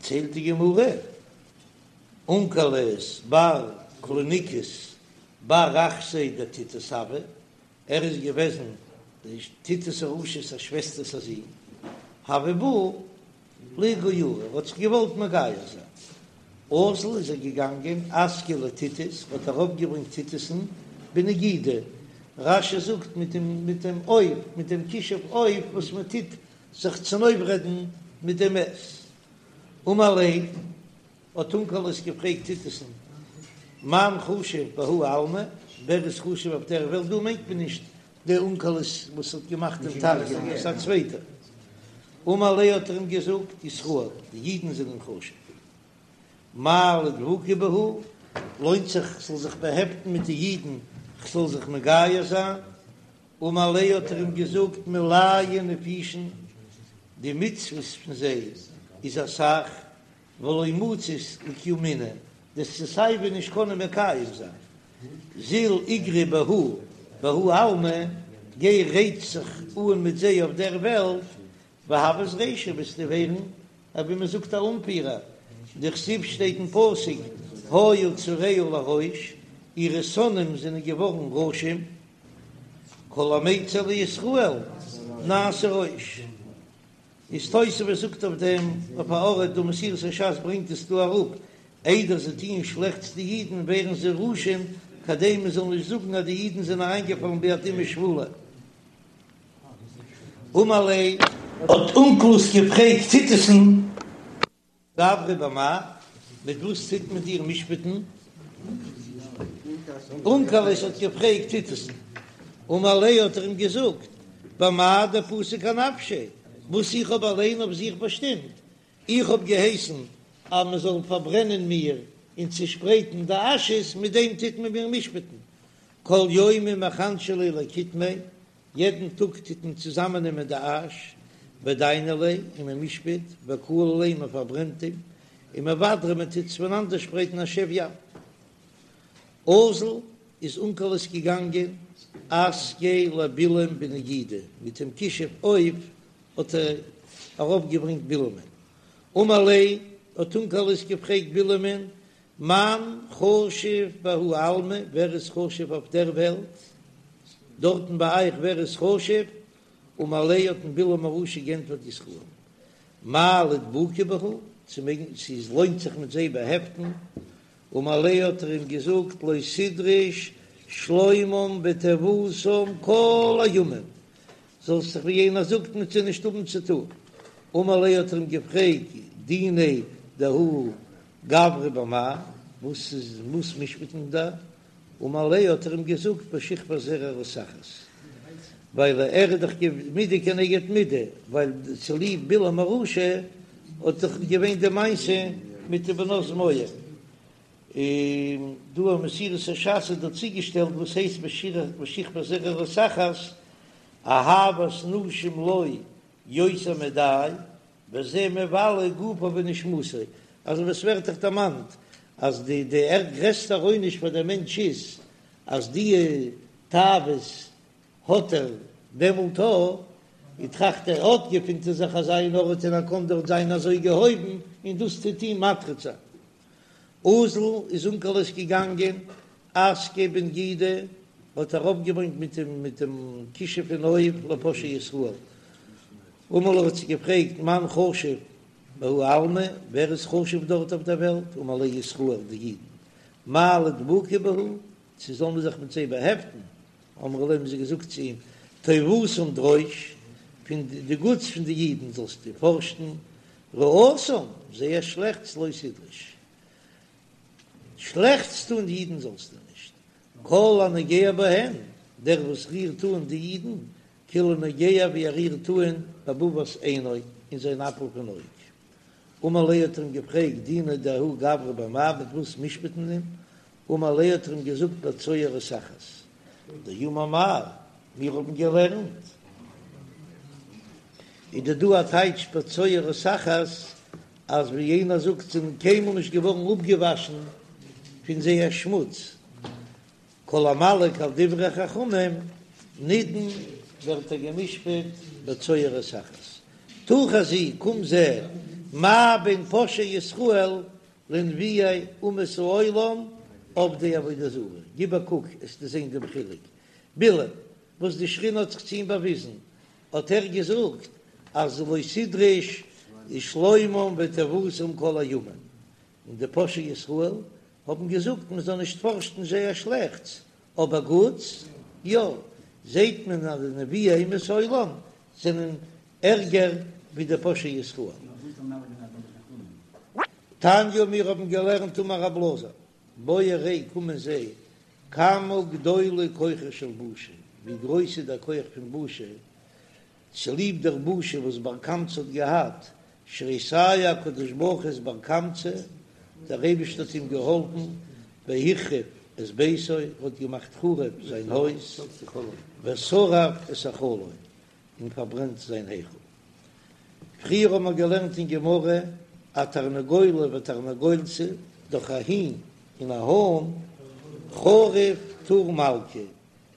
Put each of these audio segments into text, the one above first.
דערציילט די גמרא, אונקלוס בר קלוניקוס בר אחתיה דטיטוס הוה, ער איז געוועזן די טיטוס הרשע'ס א שוועסטער'ס א זון, הוה בעי לאיגיורי, ער האט זיך געוואלט מגייר זיין, אזל איז ער געגאנגען אסקיה לטיטוס, האט ארויפגעברענגט טיטוס'ן בנגידא, רש"י זאגט מיט דעם מיט דעם עוף, מיט דעם כישוף עוף וואס מען טוט זיך צונויפרעדן מיט דעם מת. אמר ליה, האט אונקלוס געפרעגט טיטוס'ן, מאן חשיב בההוא עלמא, ווער איז חשוב אויף דער וועלט, דא מיינט מען נישט דער אונקלוס וואס האט געמאכט דעם תרגום, עס איז א צווייטער. אמר ליה האט ער אים געזאגט, ישראל, די אידן זענען חשוב. מהו לאידבוקי בהו, לוינט זיך כ'זאל זיך באהעפטן מיט די אידן, כ'זאל זיך מגייר זיין? אמר ליה האט ער אים געזאגט, מילייהו נפישין, די מצוות פון זיי איז אסאך, ולא מצית לקיומינהו, דו'סט סיי ווי נישט קענען מקיים זיין. זיל איגרי בהו בההוא עלמא, גיי רייץ זיך אן מיט זיי אויף דער וועלט, והוית רישא וועסטו ווערן ווי מען זאגט א אנפירער, דכתיב שטייט אין פסוק היו צריה לראש, אירע שונאים זענען געווארן ראשים, כל המיצר לישראל נעשה ראש. איז תוספות זאגט אויף דעם אויף א ארט דא מסורת הש"ס ברענגט עס דא אראפ, איידער זיי טוען שלעכטס די אידן ווערן זיי ראשים כדי מען זאל נישט זאגן אז די אידן זענען אריינגעפאלן ביד אומה שפלה. אמר ליה. האט אונקלוס געפרעגט טיטוס'ן. גברא במאי, מיט וואס טוט מען דיר משפט'ן? אונקלוס האט געפרעגט טיטוס'ן, אמר ליה האט ער אים געזאגט, במאי דפסיק אנפשיה, וואס איך האב אליין אויף זיך באשטימט, איך האב געהייסן אז מען זאל פארברענען מיר און צושפרייטן די אשעס, מיט דעם טוט מען מיר משפט'ן, כל יומא מחנשי ליה לקיטמיה, יעדן טאג טוט מען צוזאמענעמען די אש, ודייני ליה, און מען משפט, וקלי ליה, מען פארברענט אים, ומבדרי, מען טוט עס פונאנדערשפרייטן אשב ים. אזל איז אונקלוס געגאנגען אסקיה לבלעם בנגידא, מיט דעם כישוף עוף האט ער ארויפגעברענגט בלעמ'ן. אמר ליה, האט אונקלוס געפרעגט בלעמ'ן, מאן חשיב בההוא עלמא, ווער איז חשוב אויף דער וועלט? דארטן ביי אייך ווער איז חשוב? אמר ליה האט אים בלעם הרשע גענטפערט ישראל, מהו לאידבוקי בהו, צו מעגן צו עס לוינט זיך מיט זיי באהעפטן, אמר ליה האט ער אים געזאגט לא תדרוש שלומם וטובתם כל הימים, זאלסט זיך ווי יענער זאגט מיט זיי נישט האבן צו טון, אמר ליה האט ער אים געפרעגט דיניה דההוא גברא במאי, וואס איז וואס משפט מען דא? אמר ליה האט ער אים געזאגט בשכבת זרע רותחת, ווייל ער איז דאך מידה כנגד מידה, ווייל צוליב בלעם הרשע האט דאך געווען די מעשה מיט די בנות מואב, און דא אין מסורת הש"ס איז דא צוגעשטעלט וואס הייסט בשכבת זרע רותחת, אהבת נשים לו יותר מדאי, וזה מבלה גופו ונשמתו, אזוי ווי עס ווערט דאך דערמאנט אז די די גרעסטע עונש פאר דער מענטש איז אז די תאוות האט ער דעמאלט א, און טראכט ער אט געפינט ער זיך אזא אין ארט און ער קען דארט זיין אזוי געהויבן און דאס טוט אים מטריד זיין. אזל איז אונקלוס געגאנגען אסקיה בנגידא האט ארויפגעברענגט מיט דעם מיט דעם כישוף פון עוף לפושעי ישראל. אמר ליה האט זיי געפרעגט מאן חשיב בההוא עלמא, ווער איז חשוב דארט אויף דער וועלט, אמר ליה ישראל די אידן, מהו לאידבוקי בהו, צו זאל מען זיך מיט זיי באהעפטן, אמרו ליה האבן זיי געזאגט צו אים, טובתם דרוש, פון די גוטס פון די אידן זאלסטו פארשן, רעתם, זייער שלעכטס לא תדרוש, שלעכטס טון די אידן זאלסטו נישט, כל הנוגע בהן, דער וואס רירט אן די אידן, כאילו נוגע ווי ער רירט אן בבבת עינו, אין זיין אפל פון אויג. אמר ליה האט ער אים געפרעגט, דיניה דההוא גברא במאי, מיט וואס משפט מען אים? אמר ליה האט ער אים געזאגט בצואה רותחת. דאמר מר, מיר האבן געלערנט. איז דא דא א טייטש בצואה רותחת, אז ווי יענער זאגט זענען קיינמאל נישט געווארן אפגעוואשן פון זייער שמוץ. כל המלעיג על דברי חכמים נידון ווערט ער גע'משפט בצואה רותחת. תא חזי, קום זע. מה בין פושעי ישראל לנביאי אומות העולם עובדי עבודה זרה, גיב א קוק עסטו זען דעם חילוק, בלעם וואס די שכינה האט זיך צו אים באוויזן האט ער געזאגט אז לא תדרוש שלומם וטובתם כל הימים, און די פושעי ישראל האבן געזאגט מען זאל נישט פארשן זייער שלעכטס, אבער גוטס יא, זעט מען אז די נביאי אומות העולם זענען ערגער ווי די פושעי ישראל. תניא מיר האבן געלערנט אמר רב אלעזר, בוא וראה קום און זע כמה גדולה כוחה של בושה, ווי גרויס איז דער כח פון בושה, צוליב דער בושה וואס בר קמצא האט געהאט, שהרי סייע הקדוש ברוך הוא את בר קמצא, דער אייבערשטער האט אים געהאלפן, והחריב את ביתו, ער האט געמאכט חרוב זיין הויז, ושרף את היכלו, און פארברענט זיין היכל. פריער האבן מיר געלערנט אין גמרא א תרנגולא ותרנגולתא, דורך א הין און א האן, חרוב טור מלכא,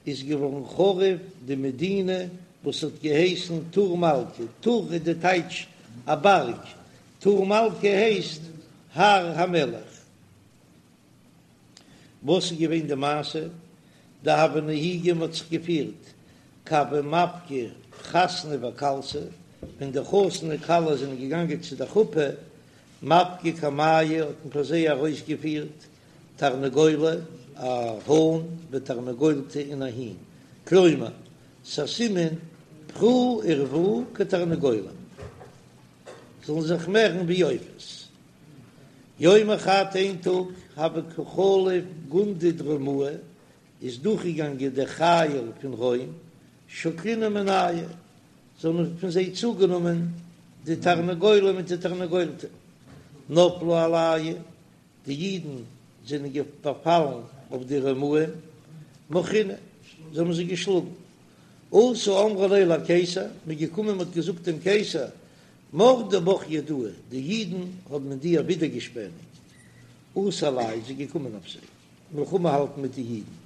איז געווארן חרוב די מדינה וואס האט געהייסן טור מלכא, טור איז די טייטש א בארג, טור מלכא הייסט הר המלך. וואס איז געווען די מעשה? דהוו נהיגי מ'האט זיך געפירט כי הוו מפקי חתנא וכלתא, ווען די חתן און כלה זענען געגאנגען צו די חופה, מפקי קמייהו האט מען פאר זיי ארויסגעפירט תרנגולא, א האן, ותרנגולתא און א הין, כלומר, ס'א סימן פרו ורבו כתרנגולים, זאלן זיך מערן ווי עופות. יומא חד איין טאג הוה קא חליף גונדא דרומאי איז דורכגעגאנגען דער חיל פון רוים שקלינהו מינייהו זיי האבן פון זיי צוגענומען די תרנגולא מיט די תרנגולתא נפלו עלייהו די אידן זענען באפאלן אויף די רומאים מחונהו זיי האבן זיי געשלאגן אתו אמרו ליה לקיסר מ'איז געקומען מ'האט געזאגט דעם קיסר מרדו בך יהודאי, די אידן האבן אין דיר ווידערגעשפעניגט, אתא עלייהו איז ער געקומען אויף זיי מלחמה האלטן מיט די אידן,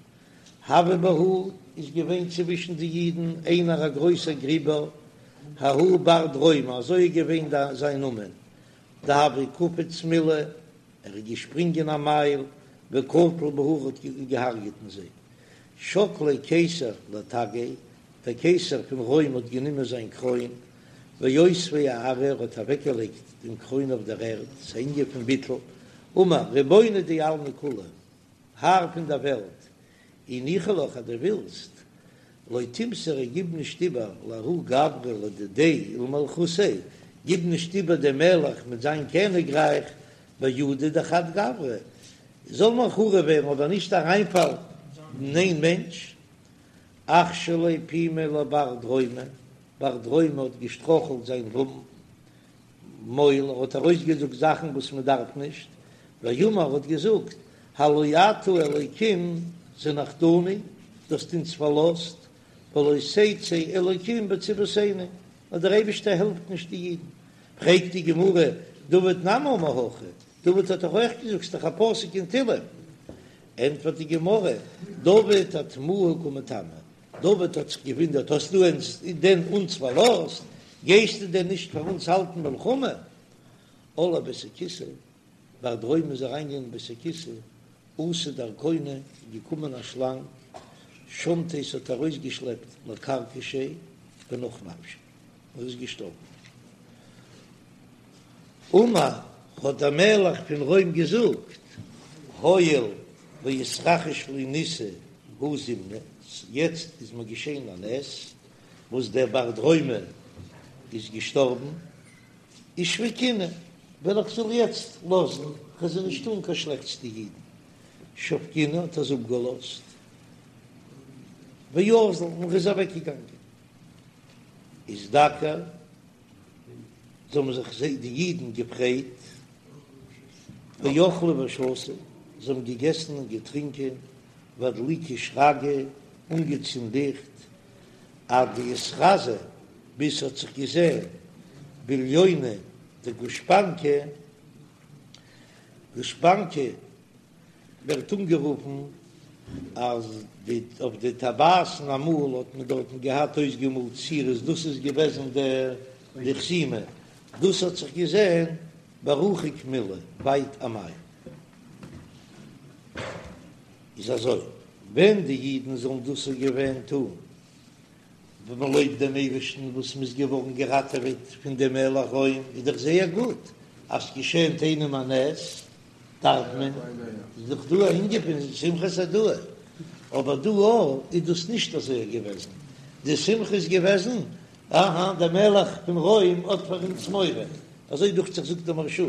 הוה בהו איז געווען צווישן די אידן איינער א גרויסער גריבער, ההוא בר דרומא אזוי איז געווען זיין נאמען, דהוה קפיץ מילא, ער איז געשפרינגען א מייל, וקטיל בהו האט געהארגעט אין זיי. שקליה קיסר לתגיה, דער קיסר פון רוים האט גענומען זיין קרוין, ואותביה אארעא, ער האט אוועקגעלייגט דעם קרוין אויף דער ערד, ס'איז אן ענין פון ביטול, אמר, רבונא דעלמא כולא, האר פון דער וועלט, אי ניחא לך אז דו ווילסט, לא תימסריה גיב נישט איבער לההוא גברא לדידיה ולמלכותיה, גיב נישט איבער דעם מלך מיט זיין קעניגרייך בידא דחד גברא, זאל מען חרוב ווערן אבער נישט אריינפאלן אין איין מענטש. אכשליה פומיה לבר דרומא, בר דרומא האט געשטראכלט זיין מויל, ער האט ארויסגעזאגט זאכן וואס מען דארף נישט, ואמר האט געזאגט, הלא אתה אלוקים זנחתנו, דו האסט אונז פארלאזט, ולא תצא אלוקים בצבאותינו, אז דער אייבערשטער העלפט נישט די אידן. פרעגט די גמרא, דוד נמי אמר הכי, דוד האט דאך אויך געזאגט, ס'איז דאך א פסוק אין תהלים. ענטפערט די גמרא, דוד אתמוהי קא מתמה, דוד האט זיך געוואונדערט, האסט דו דען אונז פארלאזט? גייסטו דען נישט פאר אונז האלטן מלחמה? על לבית הכסא, בר דרומא איז אריינגעגאנגען אין בית הכסא, אתא דרקונא, איז געקומען א שלאנג, שמטיה ס'האט ארויסגעשלעפט לכרכשיה ונח נפשיה, ער איז געשטארבן. אמר, האט דער מלך פון רוים געזאגט, הואיל ואיתרחיש לי ניסא הא זימנא, יעצט איז מיר געשען א נס וואס דער בר דרומא איז געשטארבן, אישבקינהו, וועל איך זאל יעצט לאזן, כ'וועל זיי נישט טאן קיין שלעכטס די אידן, שבקינהו האט ער זיי אפגעלאזט, ואזל, און ער איז אוועקגעגאנגען, איזדכר. זיי האבן זיך זיי די אידן געפרייט, ואכלו ושתו, זיי האבן געגעסן און געטרינקען, ואדליקו שרגי, אנגעצינדן ליכט, עד דאיתחזי, ביז ס'האט זיך געזען בליונא דגושפנקא, גושפנקא ווערט אנגערופן אז די אויף די טבעת'ן אמאל האט מען דארטן געהאט אויסגעמאלט צירות דאס איז געוועזן די חתימה. דאס האט זיך געזען ברחוק מילא, ווייט א מייל. איז אזוי, ווען די אידן זאלן דאס געווען טון, ווען מען לויבט דעם אייבערשטן וואס מען איז געווארן געראטעוועט פון דעם מלך רוים, איז דאך זייער גוט, אז ס'געשענט איינעם א נס, דארף מען, איז דאך דא א ענין פון שמחת הודאה, אבער דא איז דאס נישט אזוי געוועזן, די שמחה איז געוועזן, אהא, דער מלך פון רוים האט פאר אונז מורא, אזוי דוכט זיך זאגט דער מהרש"א.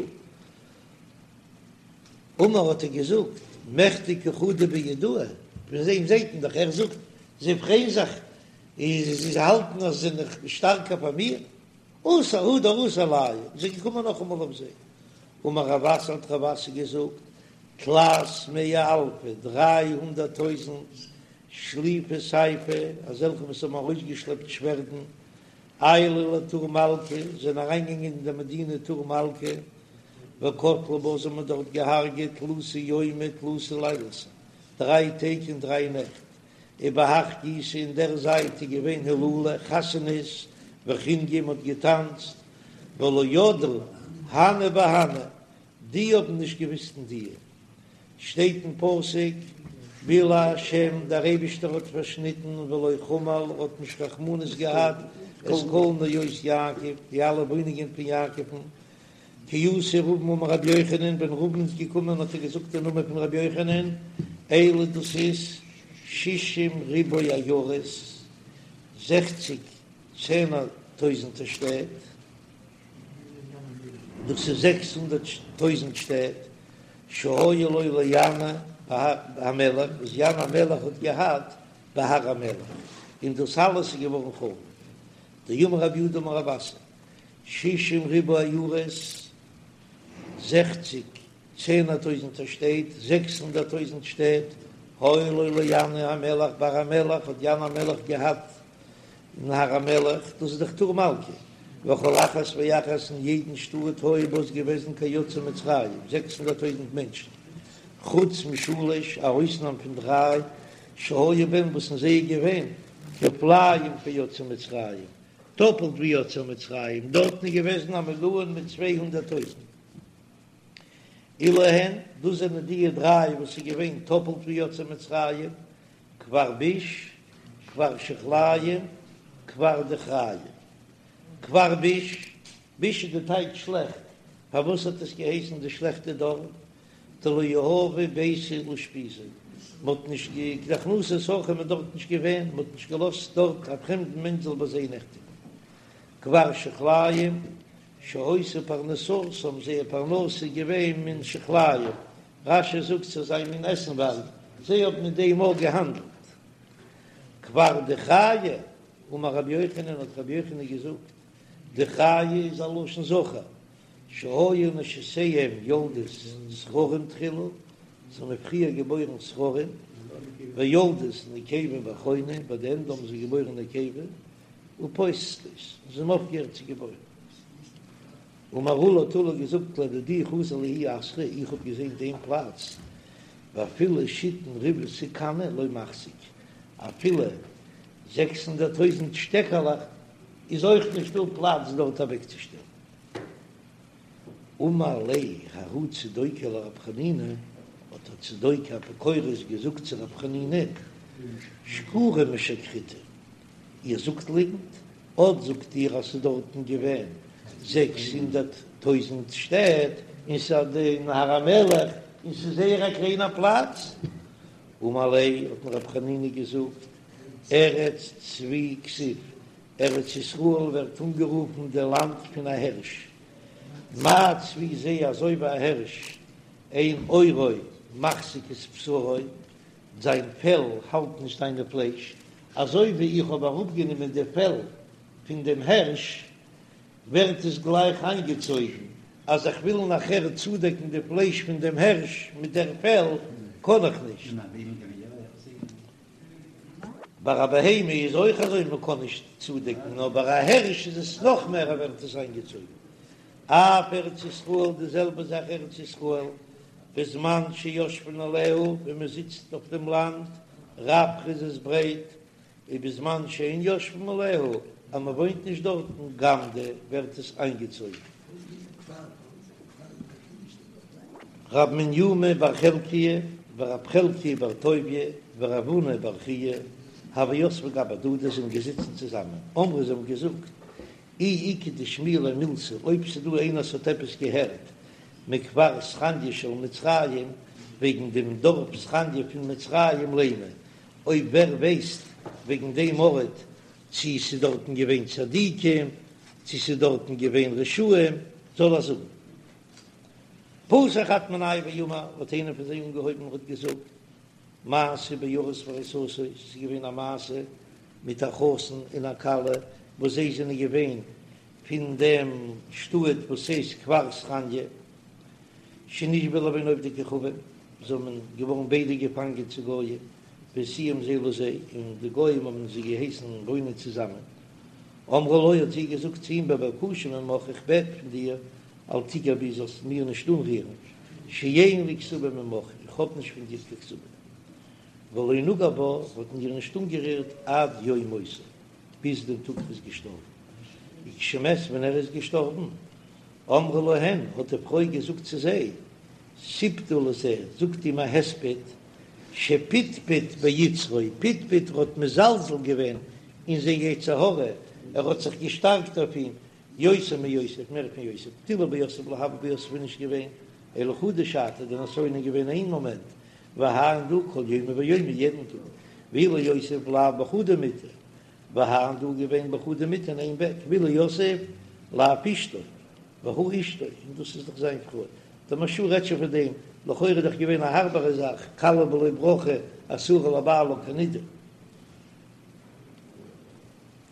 אמר האט ער געזאגט, מכדי קא חדו ביהודאי, פון דעם זעט מען דאך, ער זאגט, זיי פרייען זיך, זיי האלטן אז זיי זענען שטארקער פאר מיר, אתא הדר אתו עלייהו, זיי געקומען נאכאמאל אויף זיי. אמר רב אסי האט רב אסי געזאגט, תלת מאה אלפי, 300 טויזנט, שליפי סיפי, אזעלכע וואס האבן ארויסגעשלעפט שווערדן, עיילו לטור מלכא, זענען אריינגעגאנגען אין דער מדינה טור מלכא, וקטלו בה, זיי האבן דארט געהארגעט תלתא יומי תלתא לילתא, דריי טעג און דריי נעכט, ובהך גיסא אין דער זייט איז געווען הילולא, חתונות, וחינגא, מ'האט געטאנצט, ולא ידעו הני בהני, די האבן נישט געוויסט אין די. שטייט אין פסוק, בלע השם, דער אייבישטער האט פארשניטן, ולא חמל, האט נישט רחמנות געהאט, את כל נאות יעקב, די אלע וואוינונגען פון יעקב'ן, כי אתא רבין אמר רבי יוחנן, ווען רבין איז געקומען האט ער געזאגט אין נאמען פון רבי יוחנן, אלו דאס איז שישים ריבוא עיירות, זעכציג צענער טויזנטער שטעט, דאס איז 600 טויזנט שטעט, שהיו לו לינאי המלך, וואס ינאי המלך האט געהאט בהר המלך, און דאס אלעס איז געווארן חרוב. דאמר רב יהודה אמר רב אסי, שישים ריבוא עיירות, זעכציג צענער טויזנטער שטעט, 600 טויזנט שטעט, היו לו לינאי המלך בהר המלך, האט ינאי המלך געהאט אין הר המלך, דאס איז דאך טור מלכא, וכל אחת ואחת אין יעדן שטאט היו בה איז געוועזן כיוצאי מצרים, 600 טויזנט מענטשן, חוץ משלש, א אויסנאם פון דריי, שהיו בהן וואס אין זיי איז געווען כפליים כיוצאי מצרים, טאפלט ווי יוצאי מצרים, דארטן איז געוועזן א מיליאן מיט 200 טויזנט. אלו הן, דאס זענען די דריי וואס איז געווען טאפלט ווי יוצאי מצרים, כפר ביש, כפר שיחליים, כפר דכריא. כפר ביש, ביש איז די טייטש שלעכט, פארוואס האט עס געהייסן די שלעכטע דארף? דלא יהבו ביתא לאושפיזא, מען האט נישט קיין הכנסת אורחים איז דארט נישט געווען, מען האט נישט געלאזט דארט א פרעמדן מענטש זאל ביי זיי נעכטיגן. כפר שיחליים, שהיתה פרנסתם, זייער פרנסה איז געווען מן שיחליים, רש"י זאגט ס'איז אזא מין עסנווארג, זיי האבן מיט דעם אויך געהאנדלט. כפר דכריא, אמר רבי יוחנן, האט רבי יוחנן געזאגט, דכריא איז א לשון זכר, שהיו נשותיהם יולדות זכרים תחילה, זיי האבן פריער געבוירן זכרים, ויולדות נקבה באחרונה, ביי די ענדע האבן זיי געבוירן נקבה, ופוסקות, און זיי האבן אויפגעהערט צו געבוירן. אמר עולא האט עולא געזאגט לדידי חזי לי ההוא אתרא, איך האב געזען דעם פלאץ, ואפילו שיתין ריבעתא קני לא מחזיק, אפילו 600 טויזנט שטעקעלעך איז אויך נישט דא פלאץ דארט אוועקצושטעלן. אמר ליה ההוא צדוקי לרב חנינא, האט דער צדוקי אפיקורס געזאגט צו רב חנינא, שקורי משקריתו, איר זאגט ליגנט, אט זאגט איר אז ס'איז דארטן געווען 600 טויזנט שטעט, און ס'איז אין הר המלך, און ס'איז זייער א קליינער פלאץ. אמר ליה, האט אים רב חנינא געזאגט, ארץ צבי כתיב, ארץ ישראל ווערט אנגערופן די לאנד פון א הערש, מה צבי זה אזוי ווי א הערש, אין עורו מחזיק את בשרו, זיין פעל האלט נישט זיינע פלייש, אזוי ווי איך האב אראפגענומען די פעל פון דעם הערש, ווערט עס גלייך איינגעצויגן, אז איך וויל נאכער צודעקן די פלייש פון דעם הערש מיט דער פעל, קען איך נישט. ביי א בהמה איז אויך אזוי מען קען נישט צודעקן, נאר ביי א הערש איז עס נאך מער ער ווערט עס איינגעצויגן. אף ארץ ישראל די זעלבע זאך ארץ ישראל בזמן שיושבין עליה ווען מען זיצט אויף דעם לאנד רפרא איז עס ברייט, ובזמן שאין יושבין עליה אז מען וואוינט נישט דארטן גמדא ווערט עס איינגעצויגן. רב מניומי בר חלקיה ורב חלקיה בר טוביה ורב הונא בר חייא הוו יתבי גבי הדדי זענען געזיצן צוזאמען, אמרי זיי האבן געזאגט אי איכא דשמיע ליה מילתא אויב ס'דא איינער וואס האט עפעס געהערט מכפר סכניא של מצרים וועגן דעם דארף סכניא פון מצרים לימא אויב ווער ווייסט וועגן דעם ארט צו ס'איז דארטן געווען צדיקים צו ס'איז דארטן געווען רשעים זאל ער זאגן. פתח חד מינייהו ואמר, האט איינער פון זיי אנגעהויבן און האט געזאגט, מעשה בארוס וארוסתו, ס'איז געווען א מעשה מיט א חתן און א כלה וואס זיי זענען געווען פון דעם שטאט וואס הייסט כפר סכניא, שנשבו לבין עובדי כוכבים, זיי האבן געווארן ביידע געפאנגען צו גויים, והשיאום זה לזה, און די גויים האבן זיי געהייסן וואוינען צוזאמען. אמרה לו, האט זי געזאגט צו אים, בבקשה ממך, איך בעט פון דיר, אל תגע בי זאלסט מיר נישט אנרירן, שאין לי כתובה ממך, איך האב נישט פון דיר קיין כתובה. ולא נגע בה, האט איר נישט אנגערירט עד יום מותו, ביז דעם טאג ער איז געשטארבן. וכשמת ווען ער איז געשטארבן, אמרה להן, האט די פרוי געזאגט צו זיי, סיפדו לזה, זאגט אים א הספד, שפטפט ביצרו, פטפט ער האט מזלזל געווען אין זיין יצר הרע, ער האט זיך געשטארקט אויף אים, יותר מיוסף, מער פון יוסף, דאילו ביוסף לא הוה ביי יוסף איז נישט געווען, אלא חדא שעתא, די נסיון איז געווען איין מאמענט, והאי דא כל יומא ויומא יעדן טאג, ואילו יוסף לאו בחדא מיטה, והאי דא געווען בחדא מיטה אין איין בעט, ואילו יוסף לאו אשתו, והא אשתו, און דאס איז דאך זיין פרוי, דער מהרש"א רעדט שוין פון דעם, לכאורה איז דאך געווען א הארבערע זאך, כלה בלא ברכה אסורה לבעלה כנידה.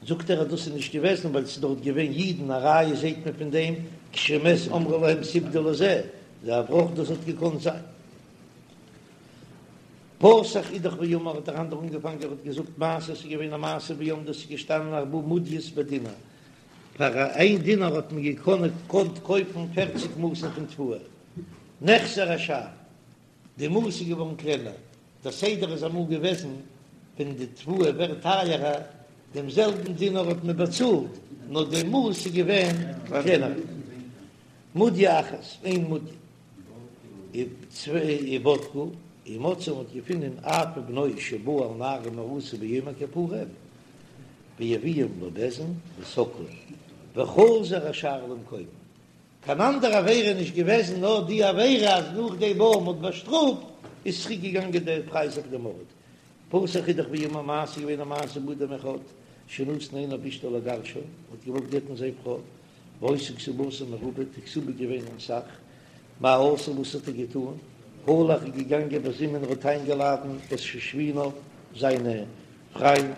זאגט ער אז דאס איז נישט געוועזן ווייל ס'איז דארט געווען אידן, א ראיה זעהט מען פון דעם כשמת אמרה להם סיפדו לזה, זה אברך דאס האט געקאנט זיין. פתח אידך ואמר האט דער אנדערע אנגעפאנגען ער האט געזאגט מעשה ס'איז געווען א מעשה בעמדו ס'איז געשטאנען ארבעה מודיות בדינר פאר איין דינר האט מען געקאנט קויפן פערציג מאסן פון תבואה נחסר השער די מאס איז געווארן קלענער, דער סדר איז אמאל געוועזן ווען די תבואה ווערט טייערער, דעם זעלבן דינר האט מען באצאלט, נאר די מאס איז געווען קלענער. מודיא אחת, איין מודיא. ובדקו, ומצאו מ'האט געפונען אב ובנו שבאו על נערה מאורסה ביום הכיפורים, והביאום לבית דין וסקלום, וחזר השער למקומו. קיין אנדערע עבירה איז נישט געוועזן נאר די עבירה אז נאך דעם וואס מ'האט באשטראפט איז צוריק געגאנגען דער פרייז אויף דעם ארט. פתח אידך ואמר מעשה געווען א מעשה באדם אחד שנתן עיניו באשתו לגרשה האט געוואלט גט'ן זיין פרוי והיתה כתובתה מרובה די כתובה געווען אסאך מה עשה וואס האט ער געטאן הלך איז געגאנגען וזימן האט איינגעלאדן את שושביניו זיינע פריינד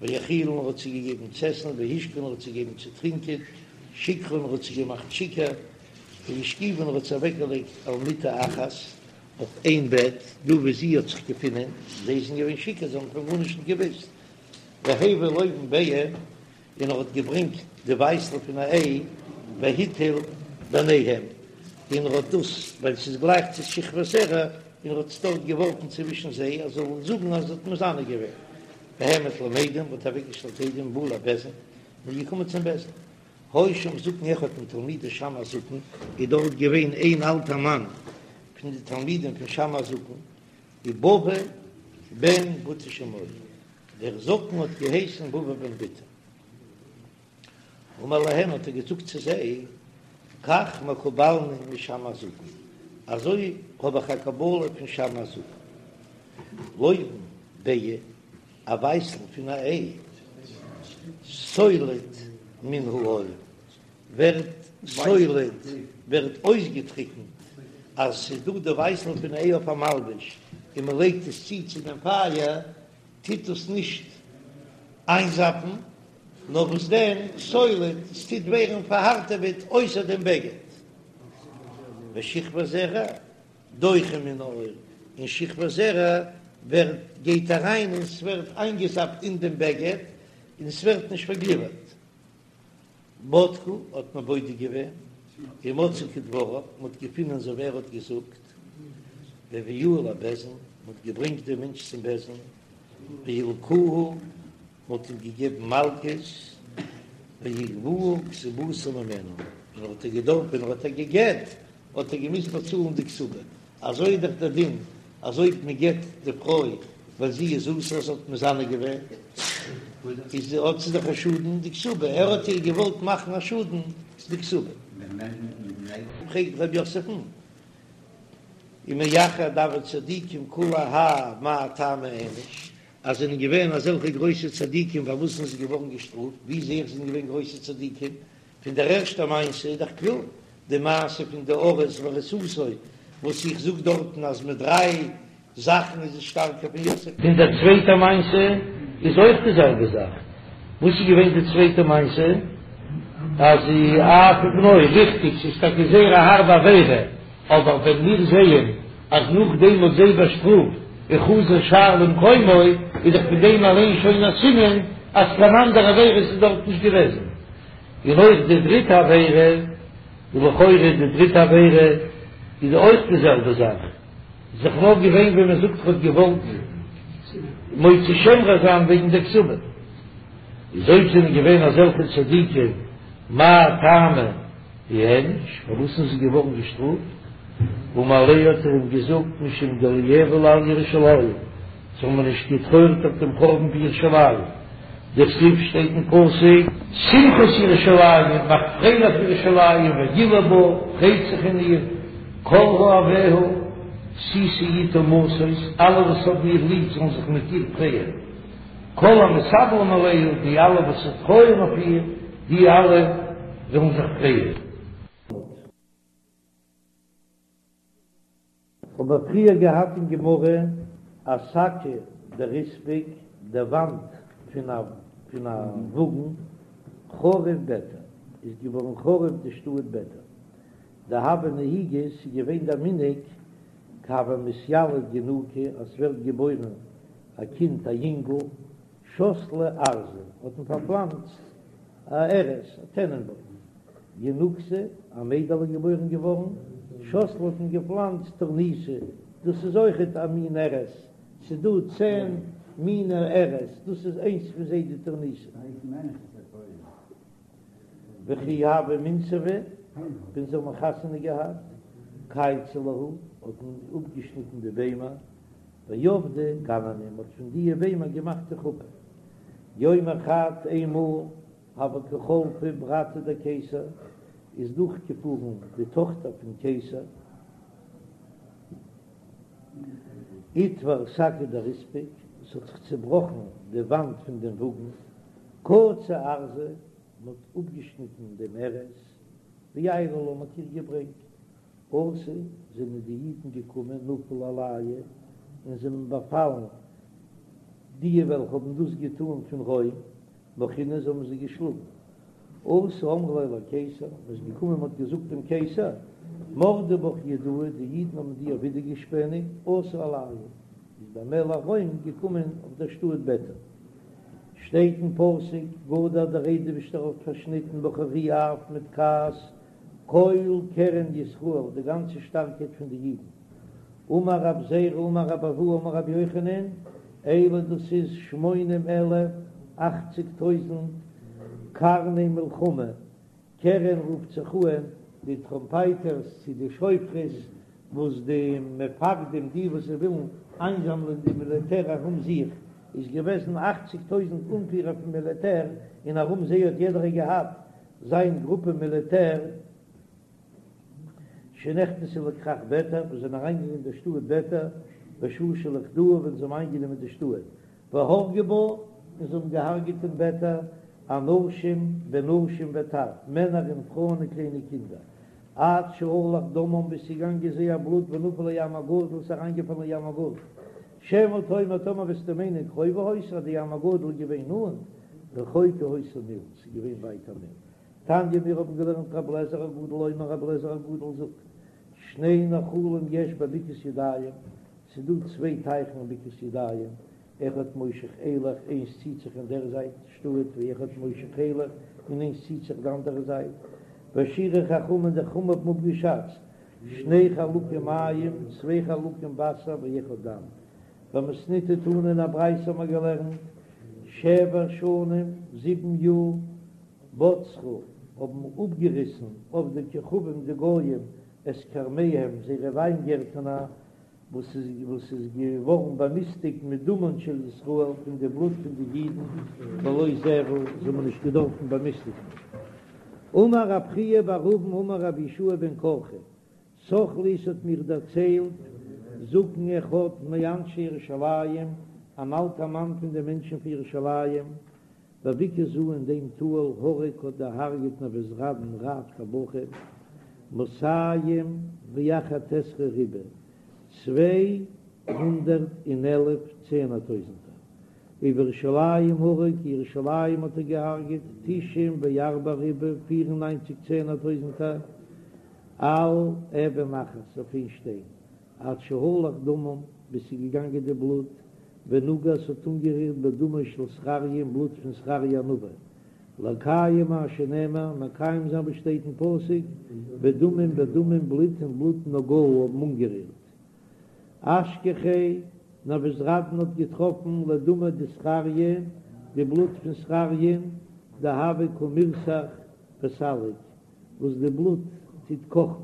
והאכילן האט זיי געגעבן צו עסן, והשקהן האט זיי געגעבן צו טרינקען, שיכרן האט זיי געמאכט שיכור, והשכיבן האט זיי אוועקגעלייגט על מיטה אחת, אויף איין בעט, דא וואו זי האט זיך געפונען, זיי זענען געווען שיכור, זיי האבן פון גארנישט נישט געוואוסט, והביא לובן ביעה, און ער האט געברענגט די ווייסל פון א איי, והטיל ביניהם, און ער האט דאס, ווייל ס'איז גלייך צו שכבת זרע, און ער האט עס דארט געווארפן צווישן זיי, אז זיי זאלן זאגן אז ער האט מזנה געווען. והעמיד להם עדים, האט אוועקגעשטעלט עדים ובא לבית דין, און איז געקומען צום בית דין. היה שם זקן אחד מתלמידי שמאי הזקן, איז דארט געווען איין אלטער מאן פון די תלמידים פון שמאי הזקן, ובבא בן בוטא שמו, דער זקן האט געהייסן בבא בן בוטא. אמר להם האט ער געזאגט צו זיי, כך מקובלני משמאי הזקן, אזוי האב איך א קבלה פון שמאי הזקן, לובן ביעה, א ווייסל פון א איי, סולד מן העור, ווערט סולד, ווערט אויסגעטריקנט, אז ס'איז דא די ווייסל פון איי אויף א מלבוש און מ'לייגט עס צו צו דעם פייער, טוט עס נישט איינזאפן, נאר וואס דען, סולד, עס טוט ווערן פארהארטעוועט אויסער דעם בגד. ושכבת זרע דוחה מן העור, און שכבת זרע ווערט גייט אריין און ס'ווערט איינגעזאפט אין דעם בגד און ס'ווערט נישט פארגליווערט. בדקו האט מען בודק געווען, ומצאו כדבריו, מען האט געפונען אזוי ווי ער האט געזאגט, והביאוהו לבית דין, מען האט געברענגט דעם מענטש צום בית דין, והלקוהו, מען האט אים געגעבן מלקות, ויגבוה כתובתה ממנה, און ער האט איר געדארפט, ווען ער האט איר גע'גט. האט ער געמוזט באצאלן די כתובה, אזוי איז דאך דער דין אז אויב מען גט די פרוי ווען זי איז אסור זי האט מזנה געווען, איז האט זי דאך א שאדן די כתובה, ער האט איר געוואלט מאכן א שאדן די כתובה. פרעגט רב יוסף'ן, ומאחר דהוו צדיקים כולי האי מאי טעמא איענוש, אז זענען געווען אזעלכע גרויסע צדיקים פארוואס זענען זיי געווארן געשטראפט, ווי זעה איך זענען געווען גרויסע צדיקים? פון דער ערשטער מעשה איז דאך קלאר די מעשה פון די ארוס וארוסתו וואס איך זאג דארטן אז מיט דריי זאכן איז עס שטארקער פון יוסף. פון דער צווייטער מעשה איז אויך די זעלבע זאך, וואס איז געווען די צווייטע מעשה? אז אף ובנו, ריכטיג ס'איז טאקע זייער א הארבע עבירה, אבער ווען מיר זעען אז נאכדעם מ'האט זיי באשטראפט וחזר שער למקומו, איז דאך פון דעם אליין שוין א סימן אז קיין אנדערע עבירות איז דארט נישט געוועזן. און אויך די דריטע עבירה, און לכאורה די דריטע עבירה איז אויך די זעלבע זאך, איז דאך נאר געווען ווען מען זאגט ער האט געוואלט מוציא שם רע זיין וועגן די כתובה, איז אויב זענען געווען אזעלכע צדיקים מאי טעמא איענוש, פארוואס זענען זיי געווארן געשטראפט? אמר ליה האט ער אים געזאגט משום דלא איאבלו על ירושלים, זיי האבן נישט געטרויערט אויף דעם חורבן פון ירושלים, דכתיב שטייט אין פסוק, שמחו את ירושלים, מאכט פרייליך ירושלים, וגילו בה, פרייט זיך אין איר, כל אוהביה, שישו אתה משוש, אלע וואס האבן איר ליב זאלן זיך מיט איר פרייען, כל המתאבלים עליה, די אלע וואס טרויערן אויף איר, די אלע זאלן זיך פרייען. האבן מיר פריער געהאט אין גמרא אשקא דריספק, די וואנט פון א פון א וואגן, חרוב ביתר, איז געווארן חרוב די שטאט ביתר, דהוה נהיגא, ס'איז געווען דער מנהג כי הוה מתיליד ינוקא אז ס'ווערט געבוירן א קינד א יונגל, שתלי ארזא, האט מען פארפלאנצט א ארז, א טענענבוים. ינוקתא, א מיידעלע איז געבוירן געווארן, שתלי האט מען געפלאנצט תורניתא, דאס איז אויכעט א מין ארז, ס'איז דא צען מיני ארז, דאס איז איינס פון זיי די תורניתא. וכי הוו מינסבי, ווען זיי האבן חתונה געהאט, קייצו להו, האט מען אפגעשניטן די ביימער, ועבדי גנני, מ'האט פון דיע ביימער געמאכט די חופה. יומא חד איינמאל הוה קא חלפא ברתא דקיסר, איז דורכגעפארן די טאכטער פון קיסר, אתבר שקא דריספק, עס האט זיך צעבראכן די וואנט פון דעם וואגן, קצו ארזא, מען האט אפגעשניטן דעם ארז, ועיילו לה, מען האט איר געברענגט, אתו, זענען די אידן געקומען נפלו עלייהו און זענען באפאלן די וועלכע האבן דאס געטאן פון רוים, מחונהו זיי האבן זיי געשלאגן. אתו אמרו ליה לקיסר, מען איז געקומען מען האט געזאגט דעם קיסר, מרדו בך יהודאי, די אידן האבן דיר ווידערגעשפעניגט, אתא עלייהו, איז דער מלך רוים געקומען אויף דער שטאט ביתר. שטייט אין פסוק, גדע דער אייבערשטער האט פארשניטן בחרי אף מיט כעס, כל קרן ישראל, די גאנצע שטארקייט פון די אידן. אמר רב זירא אמר רב אבהו אמר רבי יוחנן, אלו דאס איז שמונים אלף, אכציג טויזנט, קרני מלחמה, קרן רופט זיך אן די טראמפייטערס צו די שופרות וואס די מפקדים די וואס זיי ווילן איינזאמלען די מיליטער ארום זיך, איז געוועזן אכציג טויזנט אנפירער פון מיליטער און ארום זיי האט יעדער געהאט זיין גרופע מיליטער שנכנסו לכרך ביתר, וואס זענען אריינגעגאנגען אין דער שטאט ביתר, בשעה שלכדוה ווען זיי האבן איינגענומען די שטאט, והרגו בה, און זיי האבן געהארגעט אין ביתר, אנשים ונשים וטף, מענער און פרויען און קליינע קינדער, עד שהלך דמם ביז ס'איז געגאנגען זייער בלוט ונפל לים הגדול ס'איז אריינגעפאלן אין ים הגדול, שמא תאמר טאמער וועסטו מיינען קרובה היתה אז די ים הגדול איז געווען נאנט, רחוקה היתה מיל, ס'איז געווען ווייט א מיל. תניא מיר האבן געלערנט רבי אליעזר הגדול אומר רבי אליעזר הגדול זאגט, שני נחלים יש בבקעת ידיים, ס'איז דא צוויי טייכן אין בקעת ידיים, אחד מושך אילך, איינס ציט זיך אין דער זייט שטאט, ואחד מושך אילך, און איינס ציט זיך די אנדערע זייט, והשיערו חכמים די חכמים האבן אפגעשאצט, שני חלקים מים, צוויי חלקים וואסער ואחד דם. במתניתא תנא אין א ברייתא האבן מיר געלערנט, שבע שנים, זיבן יאר, בצרו, האבן אפגעריסן עובדי כוכבים די גויים. את כרמיהם, זייערע וויינגערטנער, וואס איז וואס איז געווארן באמיסטיגט מדמן של ישראל, פון די בלוט פון די אידן, בלא זבל, זיי האבן נישט געדארפן באמיסטיגן. אמר רב חייא בר אבין אמר רבי יהושע בן קרחה, סח לי ס'האט מיר דערציילט זקן אחד מאנשי ירושלים, אן אלטער מאן פון די מענטשן פון ירושלים, בבקעה זו אין דעם טאל הרג האט דערהרגעט נבוזראדן רב טבחים מאתים ואחד עשרה ריבוא, 211 צענער טויזנטער, ובירושלים הרג, ירושלים האט ער געהרגעט תשעים וארבעה ריבוא, 94 צענער טויזנטער, על אבן אחת אויף איין שטיין, עד שהלך דמם, ביז ס'איז געגאנגען די בלוט, ונגע ס'האט אנגערירט בדמו של זכריה אין בלוט פון זכריה הנביא, לקיים מה שנאמר, מקיים זיין וואס שטייט אין פסוק, ודמים בדמים בלוט אין בלוט נגעו האבן אנגערירט. אשכחיה, נבוזראדן האט געטראפן לדמיה דזכריה, די בלוט פון זכריה'ן, דהוה קא מירתח וסליק, וואס די בלוט טוט קאכן.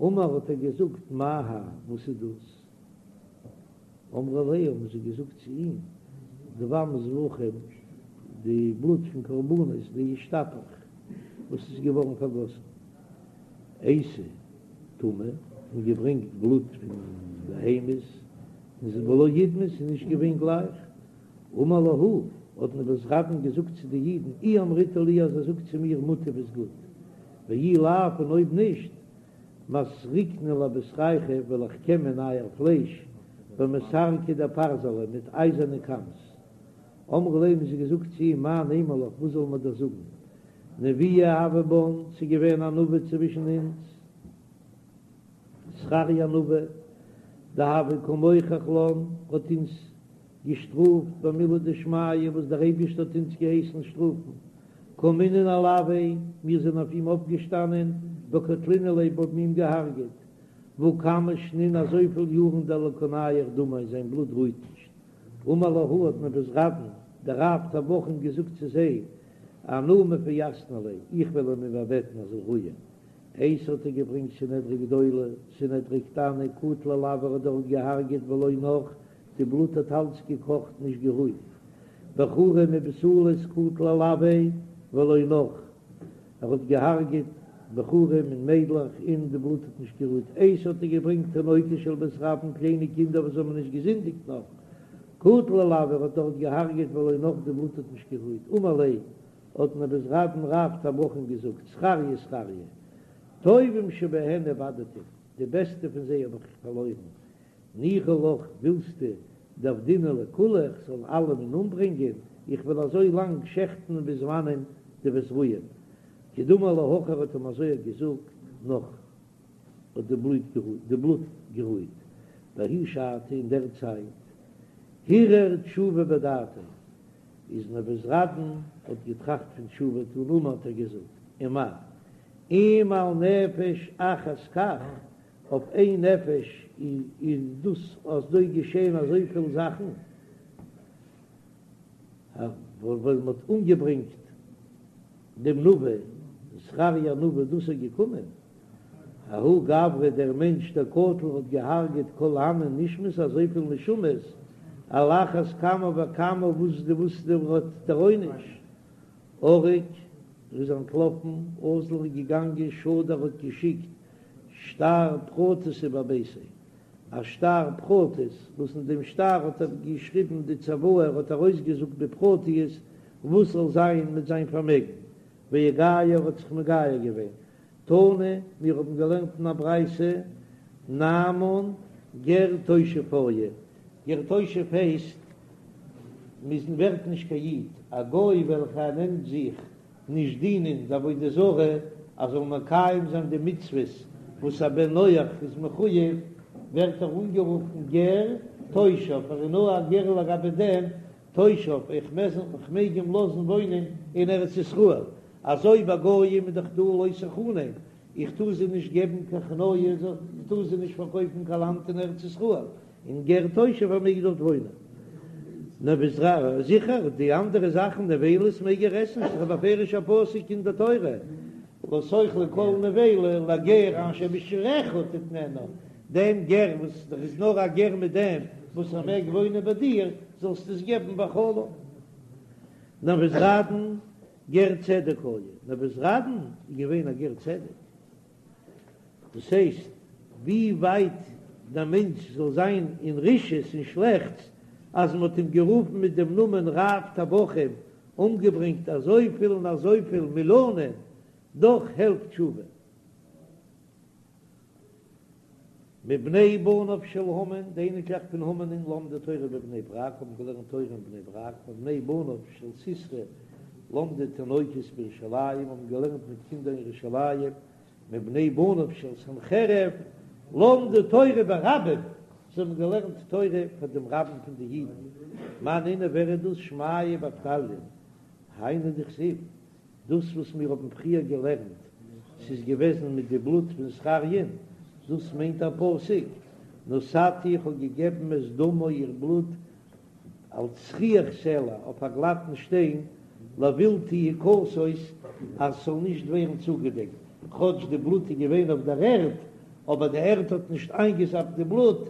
אמר האט ער געזאגט מאי האי וואס איז דאס? אמרו ליה האבן זיי געזאגט צו אים דם זבחים די בלוט פון קרבנות דאישתפך וואס איז געווארן פארגאסן אייתי טמא און געברענגט בלוט פון בהמות און ס'איז ולא אידמי ס'איז נישט געווען גלייך אמר להו האט נבוזראדן געזאגט צו די אידן אי אמריתו לי אז איר זאגט צו מיר מוטב איז גוט ואי לאו און אויב נישט, מסרקנא לבשרייכו וועל איך קעמען אייער פלייש במסרקי דפרזלא מיט אייזערנע קאמס. אמרו ליה האבן זיי געזאגט צו אים מאי נימא לך וואס זאלן מיר דיר זאגן נביאה הוה בן ס'איז געווען א נביא צווישן אונז זכריה הנביא דהוה קא מוכח לן האט אונז געשטראפט במילי דשמיא וואס דער אייבערשטער האט אונז געהייסן שטראפן, קמינן עילויה, מיר זענען אויף אים אויפגעשטאנען, וקטלינן ליה האבן אים געהארגעט, והא כמה שנין אזויפיל יארן דלא קא נייח דמיה זיין בלוט רוהט נישט, אמר להו האט נבוזראדן דער רב טבחים געזאגט צו זיי, אנא מפייסנא ליה, איך וועל אים איבערבעטן ער זאל רוען, אייתי האט ער געברענגט סנהדרי גדולה, סנהדרי קטנה, קטל עילויה האט דארט געהארגעט ולא נח, די בלוט האט אלץ געקאכט נישט גערוהט. בחורים ובתולות קטל עילויה ולא נח, ער האט געהארגעט בחורים און מיידלעך און די בלוט האט נישט גערוהט. אייתי האט ער געברענגט תינוקות של בית רבן קליינע קינדער וואס האבן נישט געזינדיגט נאך, קטל עילויה ער האט דארט געהארגעט ולא נח די בלוט האט נישט גערוהט. אמר ליה האט נבוזראדן רב טבחים געזאגט זכריה זכריה טובים שבהן איבדתים די בעסטע פון זיי האב איך פארלוירן ניחא לך ווילסטו דעבדינהו לכולהו איך זאל אלעמען אומברענגען, איך וועל אזוי לאנג שעכטן ביז וואנען דו וועסט רוען. כדאמר ליה הכי האט אים אזוי געזאגט נח האט די בלוט די בלוט גערוהט בההיא שעתא אין דער צייט הרהר תשובה בדעתיה איז נבוזראדן האט געטראכט פון תשובה טון אמר האט ער געזאגט ומה אם על נפש אחת כך אויף איין נפש איז דאס אזוי געשען אזויפיל זאכן, ווען מען האט אומגעברענגט דעם נביא זכריה הנביא דאס איז געקומען, ההוא גברא דער מענטש דקטל האט געהארגעט כל הני נשמות אזויפיל נשמות, על אחת כמה וכמה וואס די וואס דער האט דער עונש, ערק ער איז אנטלאפן, אזל איז געגאנגען שדר האט געשיקט שטר פרטתא בביתיה, א שטר פרטית, וואס אין דעם שטר האט ער געשריבן די צוואה, ער האט ארויסגעזאגט בפרטיות וואס זאל זיין מיט זיין פארמעגן, ואיגייר האט זיך מגייר געווען. תנא, מיר האבן געלערנט אין א ברייתא, נעמן גר תושב היה, גר תושב הייסט, מ'איז ווערט נישט קיין איד, א גוי וועלכער נעמט זיך נישט דינען די עבודה זרה, אז זאל מקיים זיין די מצוות וואס א בן נח איז מחויב, ווערט ער אנגערופן גר תושב, ער איז נאר א גר לגבי דעם תושב, איך מעג אים לאזן וואוינען אין ארץ ישראל, אזוי ביי גויים איז דאך דא לא תחנם, איך טאר זיי נישט געבן קיין חניה, איך טאר זיי נישט פארקויפן קיין לאנד אין ארץ ישראל, און גר תושב ער מעג דארט וואוינען. נבוז זיכער, די אנדערע זאכן נבילות מעג ער עסן, ס'איז א בפירוש'ע פסוק אין די תורה. לא תאכלו כל נבילה לגר אשר בשעריך תתננה, דעם גר וואס דער איז נאר א גר מיט דעם וואס ער מעג וואוינען ביי דיר, זאלסטו עס געבן ואכלה. נבוזראדן גר צדק היה, נבוזראדן איז געווען א גר צדק, דאס הייסט ווי ווייט דער מענטש זאל זיין אין רשעות און שלעכטס, אז מען האט אים גערופן מיט דעם נאמען רב טבחים, אומגעברענגט אזויפיל און אזויפיל מיליאנען, דאך העלפט תשובה. מבני בניו של המן, די אייניקלעך פון המן'ען למדו תורה בבני ברק, האבן געלערנט תורה אין בני ברק, מבני בניו של סיסרא למדו תינוקות בירושלים, האבן געלערנט מיט קינדער אין ירושלים, מבני בניו של סנחריב למדו תורה ברבים, זיי האבן געלערנט תורה פאר דעם רבים פון די אידן, מאן נינהו ווער איז דאס שמעיה ואבטליון, היינו דכתיב, דאס וואס מיר האבן פריער געלערנט, ס'איז געוועזן מיט די בלוט פון זכריה'ן, דאס מיינט דער פסוק, נתתי איך האב געגעבן את דמה איר בלוט על צחיח סלע אויף א גלאטן שטיין, לבלתי יכסות אז ס'זאל נישט ווערן צוגעדעקט, כאטש די בלוט איז געווען אויף דער ערד, אבער די ערד האט נישט איינגעזאפט די בלוט,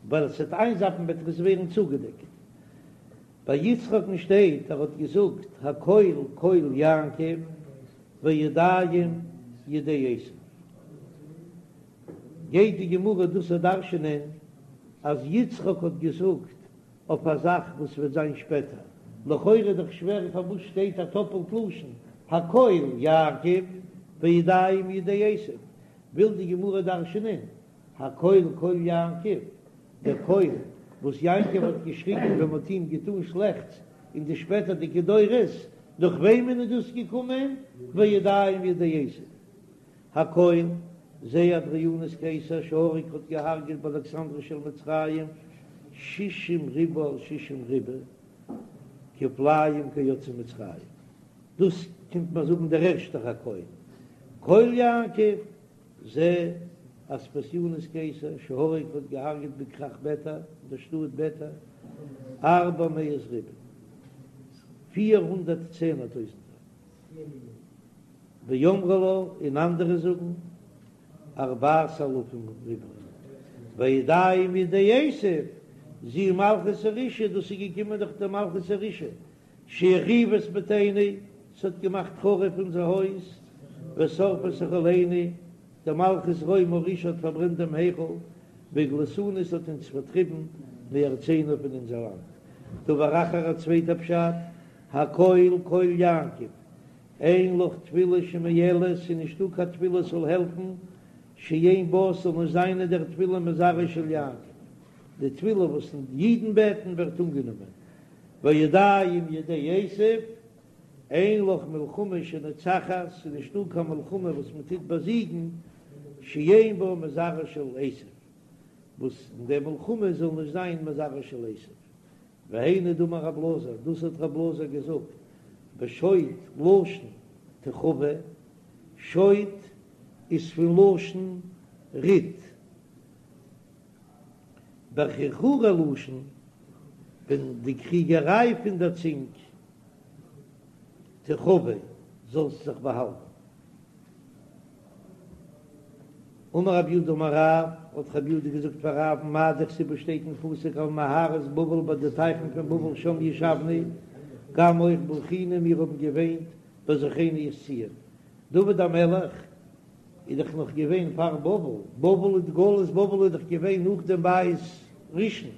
ווייל עס וועט איינזאפן וועט עס ווערן צוגעדעקט. ביי יצחק'ן שטייט ער האט געזאגט הקול קול יעקב והידים ידי עשו, גייט די גמרא דאס דרש'ענען אז יצחק האט געזאגט אויף א זאך וואס וועט זיין שפעטער, לכאורה איז דאך שווער פארוואס שטייט א טאפעלט לשון הקול יעקב והידים ידי עשו, וויל די גמרא דרש'ענען הקול קול יעקב, דער קול וואס יעקב האט געשריגן ווען מ'האט אים געטאן שלעכטס אין די שפעטערדיגע דורות, דורך וועמען איז דאס געקומען? והידים ידי עשו. הקול, זה אדריאנוס קיסר שהרג האט געהארגעט באלכסנדריה של מצרים שישים ריבוא על שישים ריבוא כפליים כיוצאי מצרים. דאס קומט מען זאגן דער ערשטער הקול קול יעקב. זה אספסיונוס קיסר שהרג האט געהארגעט בכרך ביתר, אין דער שטאט ביתר, ארבע מאות ריבוא, 400 צענער טויזנטער, ואמרי לה, און אנדערע זאגן, ארבעת אלפים ריבוא, והידים ידי עשו, זו מלכות הרשעה, דאס איז געקומען דורך דער מלכות הרשעה, שהחריבה את ביתנו, ס'האט געמאכט חרוב אונזער הויז, ושרפה את היכלנו, די מלכות רומי הרשעה האט פארברענט דעם היכל, והגליתנו ס'האט אונז פארטריבן מארצנו פון אונזער לאנד. דבר אחר א צווייטע פשט, הקול קול יעקב, אין לך תפילה שמועלת, ס'איז נישטא קיין תפילה ס'זאל העלפן, שאין בה ס'זאל נישט זיין אין דער תפילה מזרעו של יעקב, די תפילה וואס אידן בעטן ווערט אנגענומען, והידים ידי עשו, אין לך מלחמה שנוצחת, ס'איז נישטא קיין מלחמה וואס מען טוט באזיגן, שאין בה מזרעו של עשו, וואס אין דער מלחמה זאל נישט זיין מזרעו של עשו. והיינו דאמר רב אלעזר, דאס האט רב אלעזר געזאגט, בשוט לשון תחבא, שוט איז פון לשון ריט, בחרחורי לשון, ווען די קריגעריי פון דער צונג תחבא, זאלסט זיך באהאלטן. אמר רב יהודה אמר רב, האט רב יהודה געזאגט פאר רב'ן מאי דכתיב וואס שטייט אין פסוק על נהרות בבל ביי די טייכן פון בבל שם ישבנו, גם אויך בכינו מיר האבן געוויינט בזכרנו את ציון. דוד המלך איז דאך נאך געווען פאר בבל, בבל איז גלות בבל איז דאך געווען נאך דעם בית ראשון,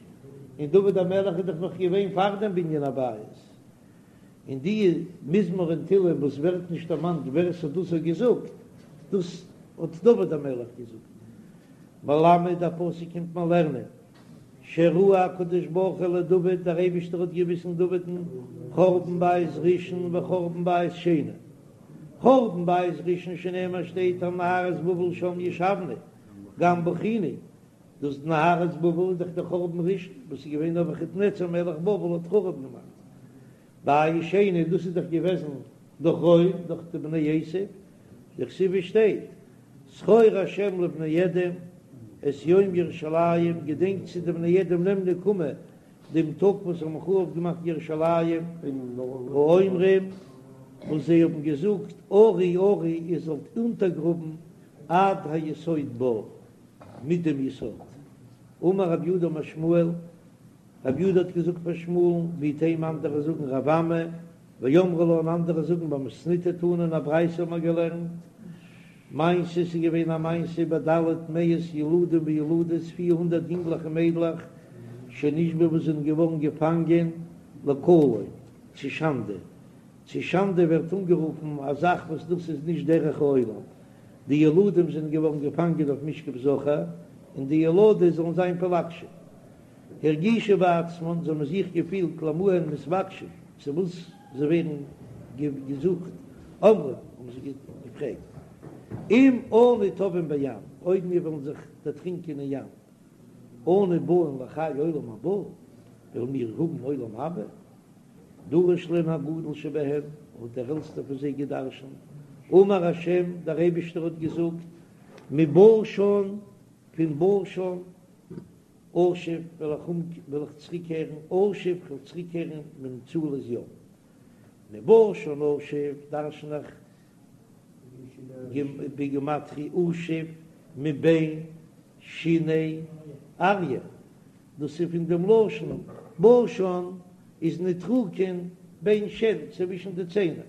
און דוד המלך איז דאך נאך געווען פאר דעם בנין הבית, און די מזמור אין תהלים וואס ווערט נישט דערמאנט ווער עס האט דאס געזאגט, דאס האט דוד המלך געזאגט. מלמד א פסוק קומט מען לערנען, שהראהו הקדוש ברוך הוא לדוד, דער אייבישטער האט געוויזן דוד'ן חורבן בית ראשון וחורבן בית שני, חורבן בית ראשון שנאמר שטייט על נהרות בבל שם ישבנו גם בכינו, דאס נהרות בבל איז דאך דער חורבן ראשון וואס איז געווען נבוכדנצר מלך בבל האט חרוב געמאכט, בית שני דאס איז דאך געוועזן דורך רוים דורך די בני עשו, דכתיב שטייט זכור השם לבני אדום את יום ירושלים געדענק צו די בני אדום נעם נקמה דעם טאג וואס האבן חרוב געמאכט ירושלים, האומרים. וואס זיי האבן געזאגט עורו עורו איר זאלט אונטערגראבן עד היסוד בה, מיט דעם יסוד. אמר רב יהודה אמר שמואל, רב יהודה האט געזאגט פאר שמואל'ן, ואיתימא אנדערע זאגן רב אמי, ואמרי לה און אנדערע זאגן במתניתא תנא אין א ברייתא האט מען געלערנט מעשה ס'איז געווען א מעשה בד' מאות ילדים וילדות 400 יונגלעך און מיידלעך שנשבו וואס זענען געווארן געפאנגען לקלון צו שאנדע, צו שאנדע ווערט אנגערופן א זאך וואס דאס איז נישט דרך העולם, די ילדים זענען געווארן געפאנגען אויף משכב זכר און די ילדות זאלן זיין פלגשים. הרגישו בעצמן, זיי האבן זיך געפילט למה הן מתבקשין, צו וואס זיי ווערן געזוכט, אמרו, האבן זיי געפרעגט, אם אנו טובעין בים, אויב מיר וועלן זיך דערטרינקען אין ים, אנו באין לחיי עולם הבא, וועלן מיר האבן עולם הבא? דרש להן הגדול שבהן, האט דער עלטסטער פון זיי געדרשנט, אמר השם, דער אייבערשטער האט געזאגט, מבשן, פון בשן, אשוב וועל איך וועל איך צוריקקערן, אשוב כ'וועל צוריקקערן ממצולות ים. מבשן אשוב דרשן איך בגימטריא אשוב מבין שיני אריה, דאס איז פון דעם לשון בשן איז נוטריקון בין שן צווישן די ציינער.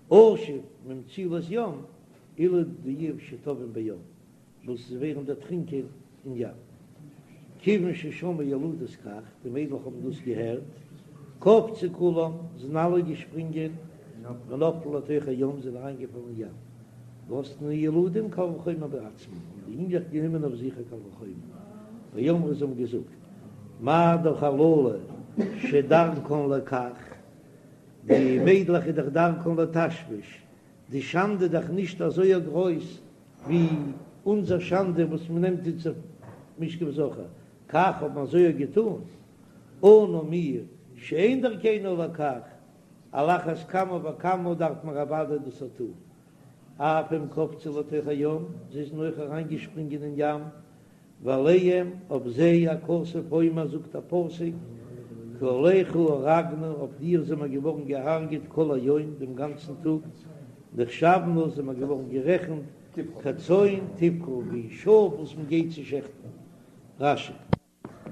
אשוב ממצולות ים אלו די שטובעים בים. וואס זיי ווערן דערטרינקען אין ים. כיוון ששמעו ילדות כך, די מיידלעך האבן דאס געהערט, קפצו כולן, זענען אלע געשפרינגען, ונפלו לתוך הים, זענען אריינגעפאלן אין ים. ונתנו ילדים קל וחומר בעצמן, האבן די יונגלעך גענומען אויף זיך א קל וחומר. ואמרו, זיי האבן געזאגט, מה דאך הללו שדרכן לכך, די מיידלעך איז דאך דרכן לתשמיש, די שאנדע איז דאך נישט אזוי גרויס ווי אונזער שאנדע וואס מען נעמט אונז אויף משכב זכר, כך האט מען אזוי געטאן, אנו מיר שאין דרכינו לכך, על אחת כמה וכמה דארף מען אוודאי דאס טאן, אף הם קפצו לתוך הים, זיי זענען אויך אריינגעשפרינגען אין ים, ועליהם, אויף זיי, הכתוב אומר, זאגט א פסוק, כי עליך הורגנו, אויף דיר זעמער געווארן געהארגעט כל היום, דעם גאנצן טאג, נחשבנו, זעמער געווארן גערעכנט, כצאן טבחה, ווי שאף וואס מען גייט צו שעכטן. רש"י.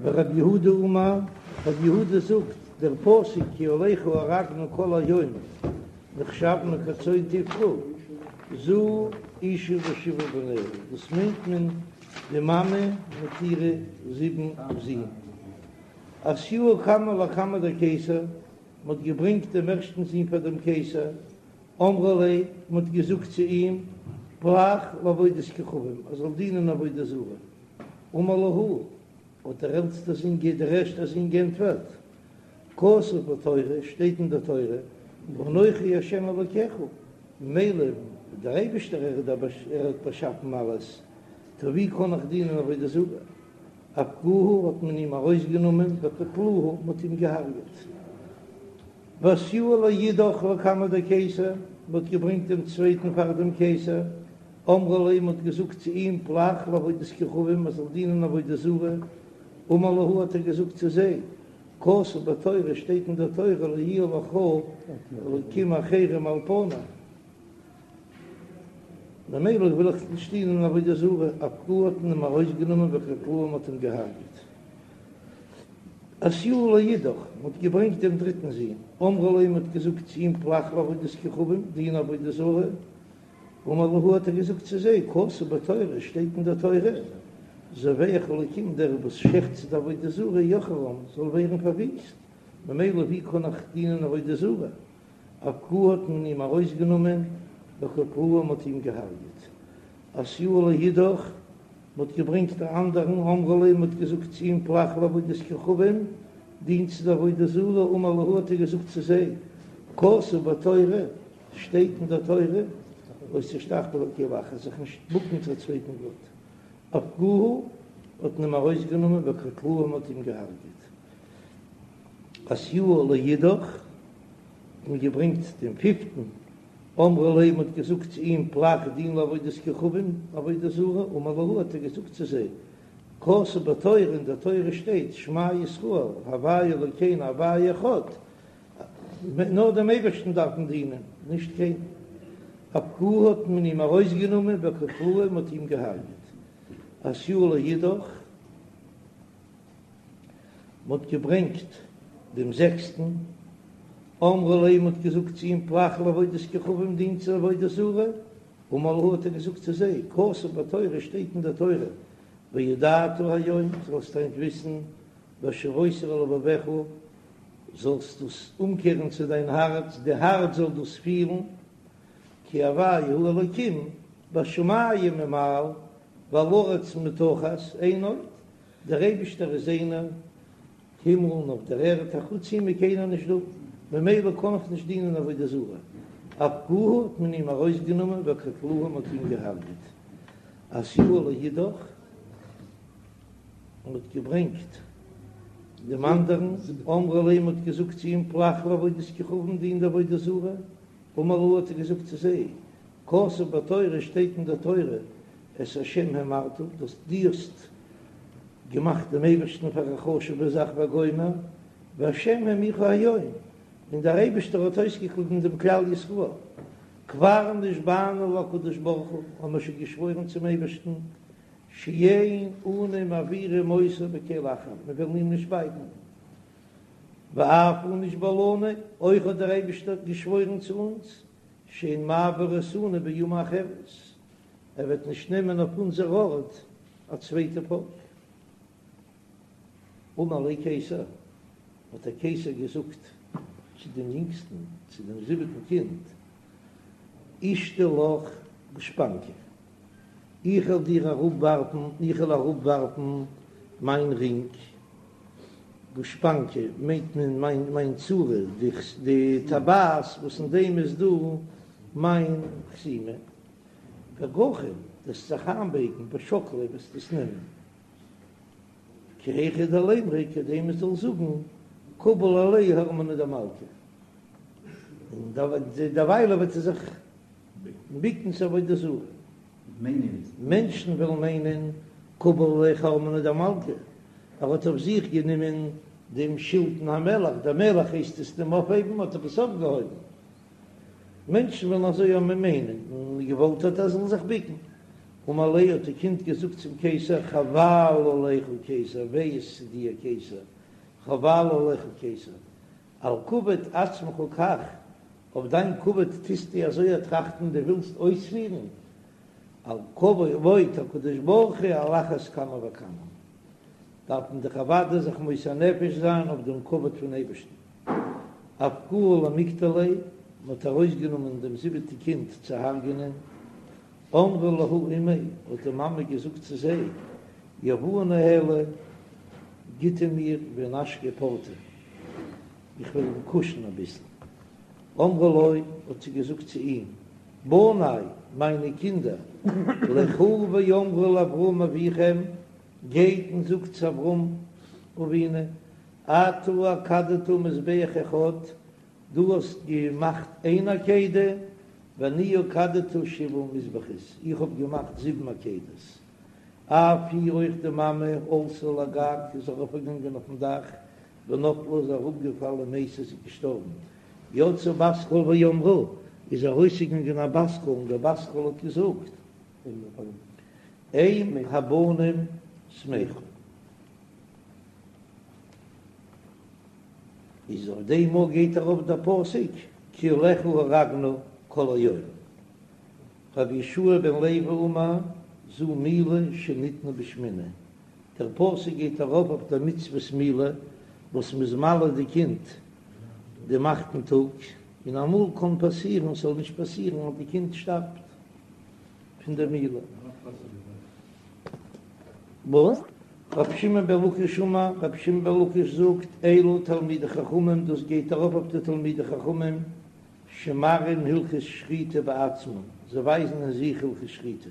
ורב יהודה אמר, רב יהודה זאגט, דער פסוק כי עליך הורגנו כל היום, נחשבנו כצאן טבחה, זו אשה ושבעה בניה, דאס מיינט מען די מאמע מיט אירע זיבן זין. אתיוהו קמא לקמיה דקיסר, מען האט געברענגט דעם ערשטן זון פאר דעם קיסר, אמרו ליה, מען האט געזאגט צו אים, פלח לעבודת כוכבים, ער זאל דינען עבודה זרה. אמר להו, האט דער עלטסטער זון, דער ערשטער זון געענטפערט, כתוב בתורה, שטייט אין דער תורה, אנכי השם אלוקיך, ממילא דער אייבישטער ער איז דער ער האט באשאפן אלעס, טא ווי קען איך דינען עבודה זרה? אפקוהו האט מען אים ארויסגענומען וקטלוהו, מען האט אים געהארגעט. ואתיוהו לאידך לקמיה דקיסר, מען האט געברענגט דעם צווייטן פאר דעם קיסר, אמרו ליה, מען האט געזאגט צו אים, פלח לעבודת כוכבים, מען זאל דינען עבודה זרה, אמר להו האט ער געזאגט צו זיי, כתוב בתורה, שטייט אין דער תורה, לא יהיה לך אלקים אחרים על פני, ממילא וויל איך נישט דינען עבודה זרה, אפקוהו האט מען אים ארויסגענומען וקטלוהו מען האט אים געהארגעט. אתיוהו לאידך, מען האט געברענגט דעם דריטן זון, אמרו ליה, מען האט געזאגט צו אים פלח לעבודת כוכבים, דין עבודה זרה, אמר להו האט ער געזאגט צו זיי, כתוב בתורה, שטייט אין דער תורה, זובח לאלקים דער וואס שעכט צו די עבודה זרה יחרם זאל ווערן פארוויסט, ממילא ווי קען איך דינען עבודה זרה? אפקוהו האט מען אים ארויסגענומען, וקטלוהו מען האט אים געהארגעט. אתיוהו לאידך, מען האט געברענגט א אנדערן, אמרו ליה מען האט געזאגט צו אים פלח לעבודת כוכבים, דין צו די עבודה זרה, אמר להו האט ער געזאגט צו זיי, כתוב בתורה, שטייט אין דער תורה, לא תשתחוה לקל אחר, זיך נישט בוקן צו א צווייטן גאט. אפקוהו האט מען אים ארויסגענומען וקטלוהו מען האט אים געהארגעט. אתיוהו לאידך האט מען געברענגט דעם פיפטן, אמרו ליה מען האט געזאגט צו אים פלח דין לעבודת כוכבים, עבודה זרה, אמר להו האט ער געזאגט צו זיי, כתוב בתורה, אין דער תורה שטייט, שמע ישראל, הוי' אלוקינו הוי' אחד. נאר דעם אייבערשטן דארף מען דינען, נישט קיינעם. אפקוהו האט מען אים ארויסגענומען וקטלוהו מען האט אים געהארגעט. אתיוהו לאידך, מען האט געברענגט דעם זעקסטן, אמרו ליה מען האט געזאגט צו אים פלח לעבודת כוכבים דין צו עבודה זרה, אמר להו האט ער געזאגט צו זיי, כתוב בתורה שטייט אין דער תורה, וידעת היום זאלסט היינט וויסן, והשבות אל לבבך זאלסט דאס אומקערן צו דיין הארץ, די הארץ זאל דאס פילן, כי הוי' הוא האלוקים בשמים ממעל ועל הארץ מתחת אין עוד, דער אייבישטער איז איינער, הימל און אויף דער ערד, אחוץ אים איז קיינער נישט דא, ממילא קען איך נישט דינען עבודה זרה. אפקוהו האט מען אים ארויסגענומען וקטלוהו מען האט אים געהארגעט. אתיוהו לאידך, מען האט געברענגט דעם אנדערן, אמרו ליה מען האט געזאגט צו אים פלח לעבודת כוכבים דין די עבודה זרה, אמר להו האט ער געזאגט צו זיי, כתוב בתורה שטייט אין דער תורה, את השם האמרת, דאס דו האסט געמאכט דעם אייבערשטן פאר א חשוב'ע זאך וגומר, והשם העמירך היום, און דער אייבערשטער האט אויסגעקליבן דעם כלל ישראל. כבר נשבענו להקדוש ברוך הוא, האבן מיר שוין געשוואוירן צום אייבערשטן, שאין אנו מעבירים אותו בקל אחר, מיר וועלן אים נישט בייטן. ואף הוא נשבע לנו, אויך האט דער אייבערשטער געשוואוירן צו אונז, שאין מעביר אותנו באומה אחרת, ער וועט נישט נעמען אויף אונזער ארט א צווייטע פאלק. אמר ליה קיסר, האט דער קיסר געזאגט צו דעם יונגסטן, צו דעם זיבעטן קינד, אשדי לך גושפנקא, איך וועל דיר אראפווארפן, איך וועל אראפווארפן מיין רינג, גושפנקא מיינט מען מיין מיין צורה, די טבעת וואס אין דעם איז דא מיין חתימה, וגחין, וועסט זיך איינבייגן, ושקלי וועסט עס נעמען, כי היכי דלימרו כדי מען זאל זאגן קביל עליה הרמנא דמלכא, און דערוויילע וועט ער זיך ביקן צו עבודה זרה. מענטשן וועלן מיינען קביל עליה חרמנא דמלכא, ער האט אויף זיך גענומען דעם שלטון המלך, דער מלך הייסט עס אים אויפהייבן, האט ער עס אויפגעהויבן. מענטשן וועלן אזוי האבן מיינען, און געוואלט האט ער זאל זיך ביקן. אמר ליה האט די קינד געזאגט צום קיסר, חבל עליך קיסר, וויי איז צו דיר קיסר, חבל עליך קיסר, על כבוד עצמך כך, אויף דיין כבוד טוסטו אזוי א טראכטן, דו ווילסט אויספירן, על כבוד הקדוש ברוך הוא על אחת כמה וכמה, דארף מען דאך אוודאי זיך מוסר נפש זיין אויף דעם כבוד פון אייבערשטן. אפקוהו למיקטליה, מען האט ארויסגענומען דעם זיבעטע קינד צו הרג'ענען, אמרה להו אימיה, האט די מאמע געזאגט צו זיי, יהבוה ניהליה, גיט אים מיר ואינשקיה פורתא, איך וועל אים קושן אביסל. אמרה לו, האט זי געזאגט צו אים, בני, מיינע קינדער, לכו ואמרו לאברהם אביכם, גייט און זאגט צו אברהם אבינו, אתה עקדת מזבח אחד, דו האסט געמאכט איין עקידה, ואני עקדתי שבעה מזבחות, איך האב געמאכט זיבן עקידות. אף היא אויך די מאמע עלתה לגג איז ארויפגעגאנגען אויפן דאך, ונפלה איז אראפגעפאלן ומתה איז געשטארבן. יצאה בת קול ואמרה, איז ארויסגעגאנגען א בת קול און דער בת קול האט געזאגט, אם הבנים שמחה. איז אויף דעם מאל גייט ארויף דער פסוק כי עליך הרגנו כל היום. רבי יהושע בן לוי אמר זו מילה שניתנה בשמיני, דער פסוק גייט ארויף אויף דער מצוות מילה וואס מ'איז מל די קינד דעם אכטן טאג, און אמאל קען פאסירן ס'זאל נישט פאסירן אז די קינד שטארבט פון דער מילה. רבי שמעון בן לקיש אמר, רבי שמעון בן לקיש זאגט, אלו תלמידי חכמים, דאס גייט ארויף אויף די תלמידי חכמים שמראים הלכות שחיטה בעצמם, זיי ווייזן אין זיך הלכות שחיטה.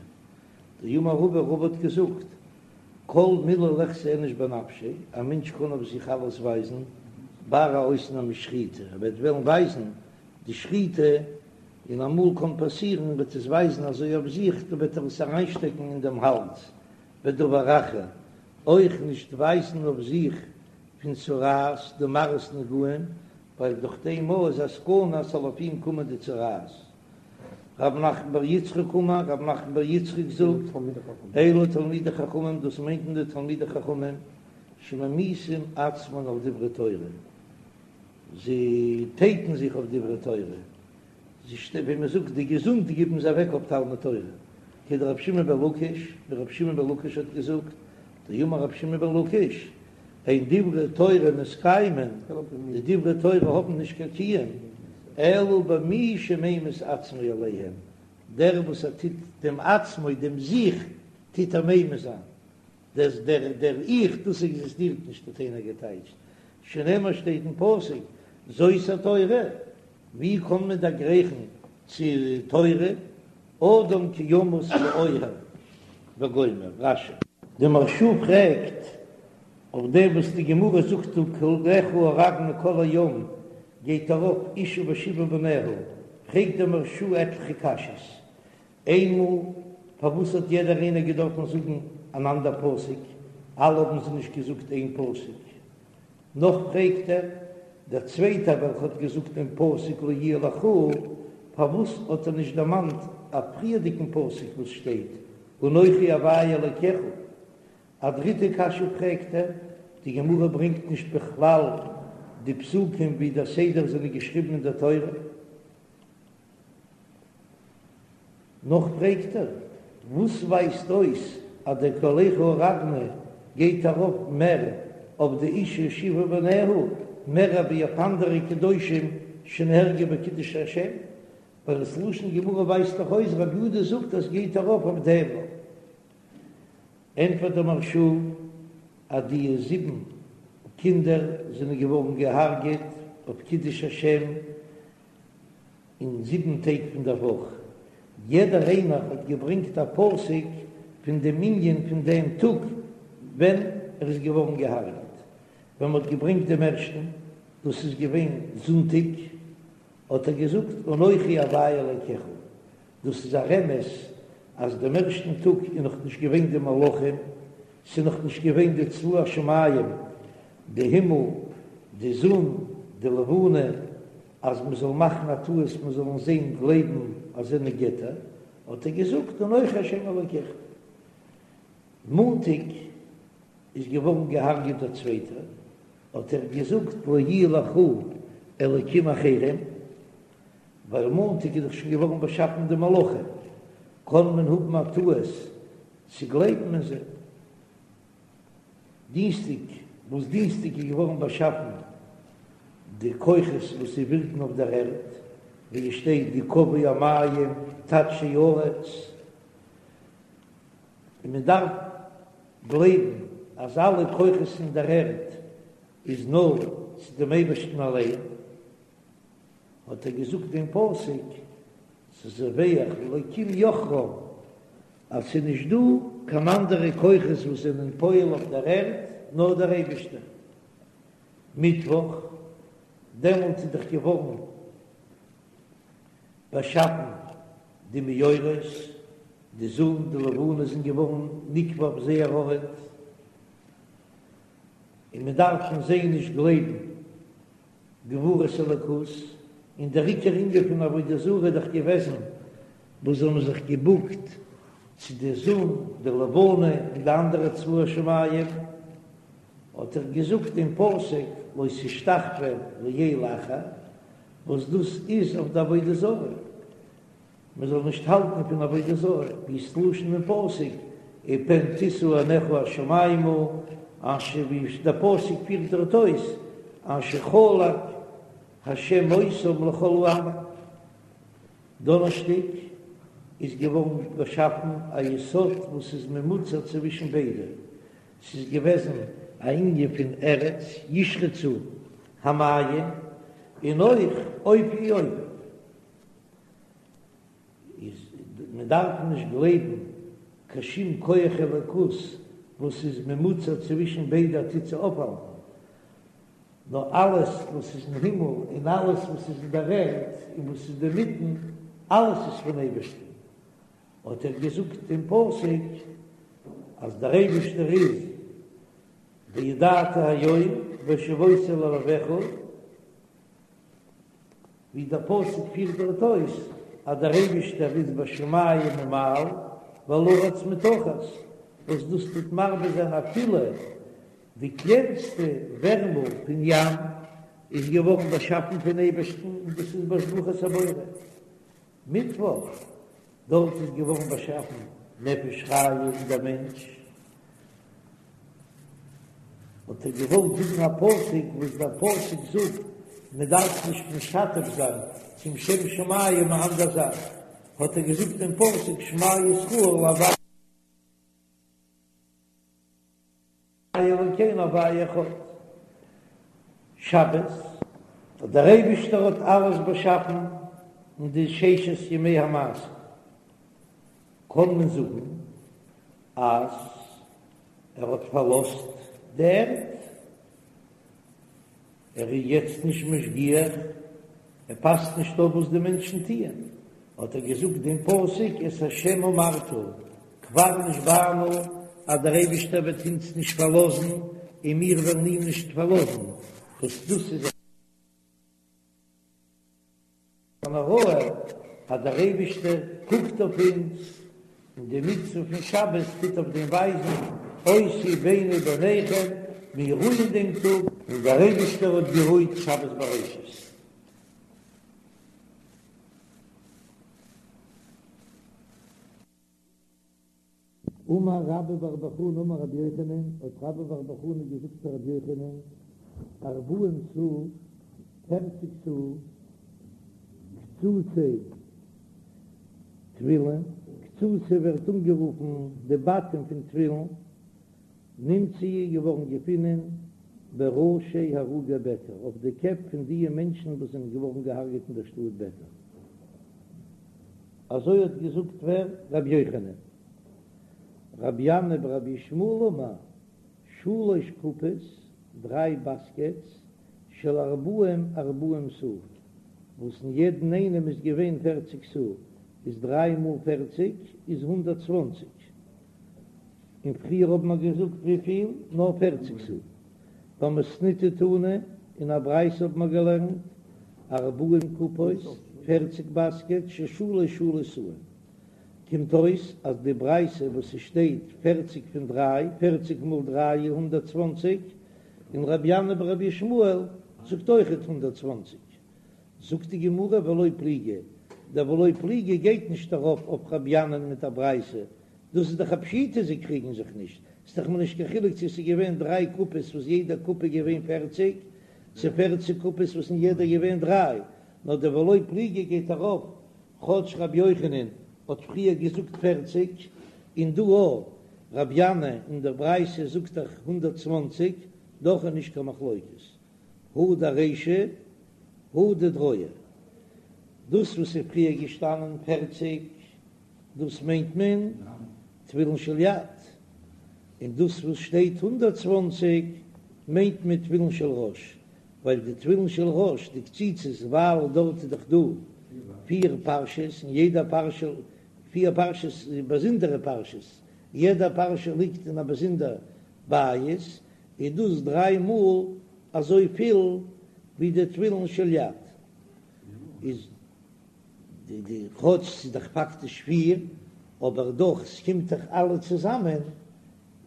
דאמר רבא, רבא האט געזאגט, כל מילי ליחזי איניש בנפשיה, א מענטש קען אויף זיך אלעס ווייזן, בר א אויסנאם איז שחיטה, ער וועט וועלן ווייזן די שחיטה, און אמאל קען פאסירן וועט עס ווייזן אזוי אויף זיך, דא וועט ער עס אריינשטעקן אין דעם האלז, ודבר אחר, אויך נישט ווייזן אויף זיך פון צרעת די מראות נגעים. ווייל דורך דעם מאל איז א סכנה אז ס'זאל אויף אים קומען די צרעת. רב נחמן בר יצחק אמר, רב נחמן בר יצחק זאגט, אלו תלמידי חכמים, דאס מיינט מען די תלמידי חכמים שממיתים עצמן על דברי תורה, זיי טייטן זיך אויף דברי תורה, זיי ווי מען זאגט די געזונט גיבן זיי אוועק אויף תלמוד תורה, כדרבי שמעון בן לקיש, ווי רבי שמעון בן לקיש האט געזאגט, דאמר רבי שמעון בן לקיש, אין דברי תורה מתקיימין, די דברי תורה האבן נישט קיין קיום, אלא במי שממית עצמו עליהם, דער וואס ער טוט דעם עצמו, דעם זיך, טוט ער ממית זיין, דער דער דער איך, דאס עקזיסטירט נישט האט איינער געטייטשט, שנאמר שטייט אין פסוק, זאת התורה, ווי קען מען דערגרייכן צו תורה, אדם כי ימות באוהל וגומר, רש"י. די מהרש"א פרעגט אויף דעם וואס די גמרא זאגט דא קולך הרגנו כל היום גייט ארויף אשה ושבעה בניה, פרעגט דער מהרש"א עטליכע קשיות, איינמאל פארוואס האט יעדער איינער געדארפן זאגן אן אנדער פסוק, אלע האבן זיי נישט געזאגט איין פסוק, נאך פרעגט ער, דער צווייטער וועלכע האט געזאגט דעם פסוק לא יהיה לך, פארוואס האט ער נישט דערמאנט א פריערדיגן פסוק וואס שטייט אנכי הוי' אלקיך? א דריטע קשיא פרעגט ער, די גמרא ברענגט נישט בכלל די פסוקים ווי דער סדר זענען געשריבן אין דער תורה. נאך פרעגט ער, וואס ווייזט אויס אז דער קולך הרגנו גייט ארויף מער אויף די אשה ושבעה בניה מער ווי אויף אנדערע קדושים שנהרגו בקידוש השם, ווייל עס לשון גמרא ווייזט דאך אויס רבי יהודה זאגט אז גייט ארויף אויף דעם. ענטפערט דער מהרש"א אז די זיבן קינדער זענען געווארן געהארגעט אויף קידוש השם, אין זיבן טעג פון דער וואך, יעדער איינער האט געברענגט א פסוק פון דעם ענין פון דעם טאג ווען ער איז געווארן געהארגעט. ווען מען האט געברענגט דעם ערשטן, דאס איז געווען זונטאג, האט ער געזאגט אנכי הוי' אלקיך, דאס איז א רמז אז דעם ערשטן טאג איז נאך נישט געווען די מלאכים, ס'איז נאך נישט געווען די צבא השמים, די הימל, די זון, די לבנה, אז מען זאל מאכן א טעות מען זאל אין זיי גלייבן אז זענען געטער, האט ער געזאגט אנכי השם אלקיך. מאנטאג איז געווארן געהארגעט דער צווייטער, האט ער געזאגט לא יהיה לך אלקים אחרים, ווייל מאנטאג איז דאך שוין געווארן באשאפן די מלאכים, קען מען האבן א טעות צו גלייבן אין זיי. דינסטאג, וואס דינסטאג איז געווארן באשאפן די כוחות וואס זיי ווירקן אויף דער ערד, ווי עס שטייט גקוו המים תדשא הארץ, און מען דארף גלייבן אז אלע כוחות אין דער ערד איז נאר צו דעם אייבערשטן אליין, האט ער געזאגט דעם פסוק, זובח לאלקים יחרם, אז ס'איז נישט דא קיין אנדערע כוחות וואס זענען פועל אויף דער ערד נאר דער אייבערשטער. מיטוואך, דעמאלט איז דאך געווארן באשאפן די מאורות, די זון, די לבנה זענען געווארן נקבע אויף זייער ארט, און מען דארף פון זיי נישט גלייבן גבורת אלוקות, און דער עיקר ענין פון עבודה זרה איז דאך געוועזן וואס זיי האבן זיך געבוקט צו די זון, די לבנה און די אנדערע צבא השמים, האט ער געזאגט דעם פסוק לא תשתחוה לאל אחר, וואס דאס איז אויף די עבודה זרה. מען זאל נישט האלטן פון עבודה זרה, ווי ס'לשון אין פסוק, ופן תשא עיניך השמימה, אשר ווי דער פסוק פירט דארט אויס, אשר חלק השם אותם לכל העמים. דאנערשטאג איז געווארן באשאפן א יסוד וואס איז ממוצע צווישן ביידע, ס'איז געוועזן א ענין פון ארץ ישרצו המים, און אויך עופי יעופף. איז מען דארף נישט גלייבן קיין שום כח אלוקות וואס איז ממוצע צווישן ביידע טוט זיי אויפהאלטן, נאר אלעס וואס איז אין הימל און אלעס וואס איז אין דער ערד און וואס איז אינמיטן, אלעס איז פון אייבערשטן. האט ער געזאגט דעם פסוק אז דער אייבערשטער איז וידעת היום והשבות אל לבבך. ווי דער פסוק פירט דארט אויס אז דער אייבישטער איז בשמים ממעל ועל הארץ מתחת, וואס דאס טוט מרבה זיין אפילו די קלענסטע ווערמל פון ים איז געווארן באשאפן פון אייבערשטן און דאס איז בהשגחת הבורא. מיטוואך, דארט איז געווארן באשאפן נפש חיה אין דער מענטש, האט ער געוואלט זאגן א פסוק וואס דער פסוק זאגט מען דארף נישט משתף זיין צום שם שמים א אנדער זאך, האט ער געזאגט דעם פסוק שמע ישראל הוי' אלוקינו הוי' אחד. שבת, דער אייבישטער האט אלעס באשאפן אין די ששת ימי המעשה, קען מען זאגן אז ער האט פארלאזט די ערד, ער איז יעצט נישט משגיח, ער פאסט נישט אויף וואס די מענטשן טוען, האט ער געזאגט דעם פסוק את השם אמרת כבר נשבענו אז דער אייבישטער וועט אונז נישט פארלאזן און מיר וועלן אים נישט פארלאזן, וואס דאס איז אן הוראה אז דער אייבישטער קוקט אויף אונז, און די מצוה פון שבת טוט אויף דעם ווייזן, אות היא ביני וביניכם, מיר רוען דעם טאג, און דער אייבישטער האט גערוהט שבת בראשית. אמר רבה בר בר חנה אמר רבי יוחנן, האט רבה בר בר חנה געזאגט צו רבי יוחנן, ארבעים סאה, פערציג סאה, קצוצי תפילין, קצוצי ווערט אנגערופן די בתים פון תפילין, נמצאו געווארן געפונען בראשי הרוגי ביתר, אויף די קעפ פון דיע מענטשן וואס זענען געווארן געהארגעט אין דער שטאט ביתר. אזוי האט געזאגט ווער? רבי יוחנן. רבי ינאי ברבי ישמעאל אמר, שלש קופות, דריי באסקעטס, של ארבעים ארבעים סאה, וואס אין יעדן איינעם איז געווען פערציג סאה, איז דריי מאל פערציג איז 120. און פריער האבן מיר געזאגט וויפיל? נאר פערציג סאה. במתניתא תנא, אין א ברייתא האבן מיר געלערנט, ארבעים קופות, פערציג באסקעט, של שלש שלש סאין. קומט אויס אז די ברייתא וואס ס'שטייט פערציג פון דריי, פערציג מאל דריי איז 120, און רבי ינאי ברבי ישמעאל זאגט אויכעט 120. זאגט די גמרא ולא פליגי, דער ולא פליגי גייט נישט ארויף אויף רבי ינאי'ן מיט א ברייתא, דאס איז דאך א פשיטא זיי קריגן זיך נישט, ס'איז דאך מיר נישט קיין חילוק צו ס'איז געווען דריי קופות וואס יעדע קופה איז געווען פערציג, צו פערציג קופות וואס אין יעדע געווען דריי, נאר דער ולא פליגי גייט ארויף כאטש רבי יוחנן האט פריער געזאגט פערציג, און דא אויך רבי ינאי אין דער ברייתא זאגט דאך 120, דאך איז נישט קיין מחלוקת. הא דארישא הא דדרועא, דאס וואס איז פריער געשטאנען פערציג, דאס מיינט מען תפילין של יד, און דאס וואס שטייט 120 מיינט מען תפילין של ראש, ווייל די תפילין של ראש, די קציצות, ווייל דארט איז דאך דא פיר פרשות, און יעדע פרשה, פיר פרשות באזונדערע פרשות, יעדע פרשה ליגט אין א באזונדער בית, איז דאס דריי מאל אזוי פיל ווי די תפילין של יד, איז די די כאטש ס'איז דאך פאקטיש פיר, אבער דאך ס'קומט דאך אלע צוזאמען,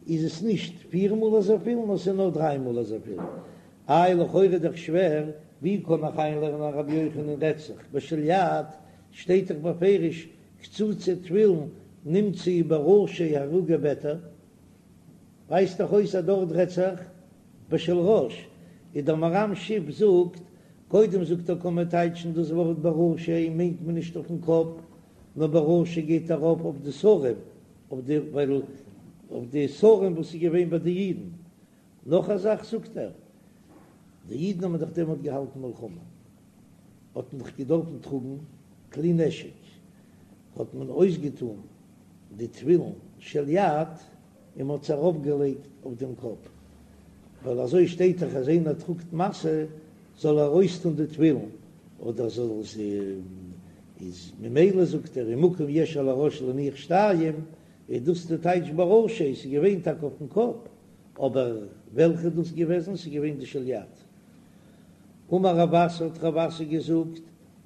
איז עס נישט פיר מאל אזויפיל נאר ס'איז נאר דריי מאל אזויפיל. איי לכאורה איז דאך שווער, ווי קען איך איינלערנען אז רבי יוחנן רעדט זיך בשל יד, שטייט דאך בפירוש קצוצי תפילין נמצאו בראשי הרוגי ביתר, ווייזט דאך אויס אז דארט רעדט זיך בשל ראש, איז דער מהר"ם שיף זאגט, קודם זאגט ער קען מען טייטשן דאס ווארט בראשי מיינט מען נישט אויפן קאפ, נאר בראשי גייט ארויף אויף די שרים, אויף די ווייל אויף די שרים וואס איז געווען ביי די אידן. נאך א זאך זאגט ער, די אידן האבן דאך דעמאלט געהאלטן מלחמה, האט מען דאך געדארפן טראגן כלי נשק, האט מען אויסגעטאן די תפילין של יד און מ'האט עס ארויפגעלייגט אויף דעם קאפ, ווייל אזוי שטייט דאך אז איינער טראגט משא זאל ער אויסטון די תפילין, אדער זאל עס איז ממילא זאגט ער ומקום יש על הראש להניח שתיים, איז דאס די טייטש בראשי, ס'איז געווען טאקע אויפן קאפ, אבער וועלכע איז דאס געוועזן? ס'איז געווען די של יד. אמר רב אסי האט רב אסי געזאגט.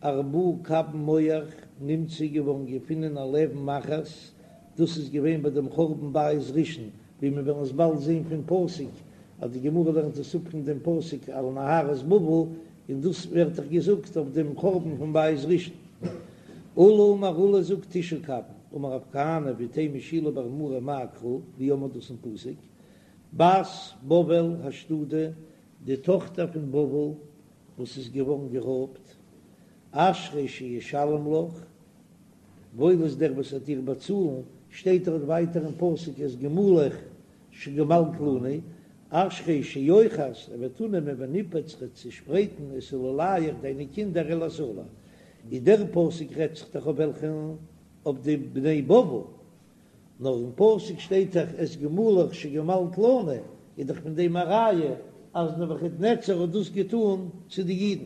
ארבעה קבין מוח נמצא געווארן געפונען על אבן אחת, דאס איז געווען ביי דעם חורבן בית ראשון, ווי מיר וועלן עס באלד זען פון פסוק, אז די גמרא לערנט עס אפ פון דעם פסוק על נהרות בבל, און דאס ווערט דאך געזאגט אויף דעם חורבן פון בית ראשון. עולא אמר עולא זאגט תשעה קבין, אמר רב כהנא ואיתימא שילא בר מרי מאי קרא, ווי האט מען דאס אין פסוק? בת בבל השדודה, די טאכטער פון בבל וואס איז געווארן גערויבט, אשרי שישלם לך, וואויל איז דער וואס וועט דיר באצאלן, שטייט דארט ווייטער אין פסוק את גמולך שגמלת לנו, אשרי שיאחז, ער וועט אננעמען וניפץ ער וועט צעשפרייטן את עולליך דיינע קינדער אל הסלע, איז דער פסוק רעדט זיך דאך אויף וועלכן? אויף די בני בבל, נאר אין פסוק שטייט דאך את גמולך שגמלת לנו, איז דאך פון דעם א ראיה אז נבוכדנצר האט דאס געטאן צו די אידן.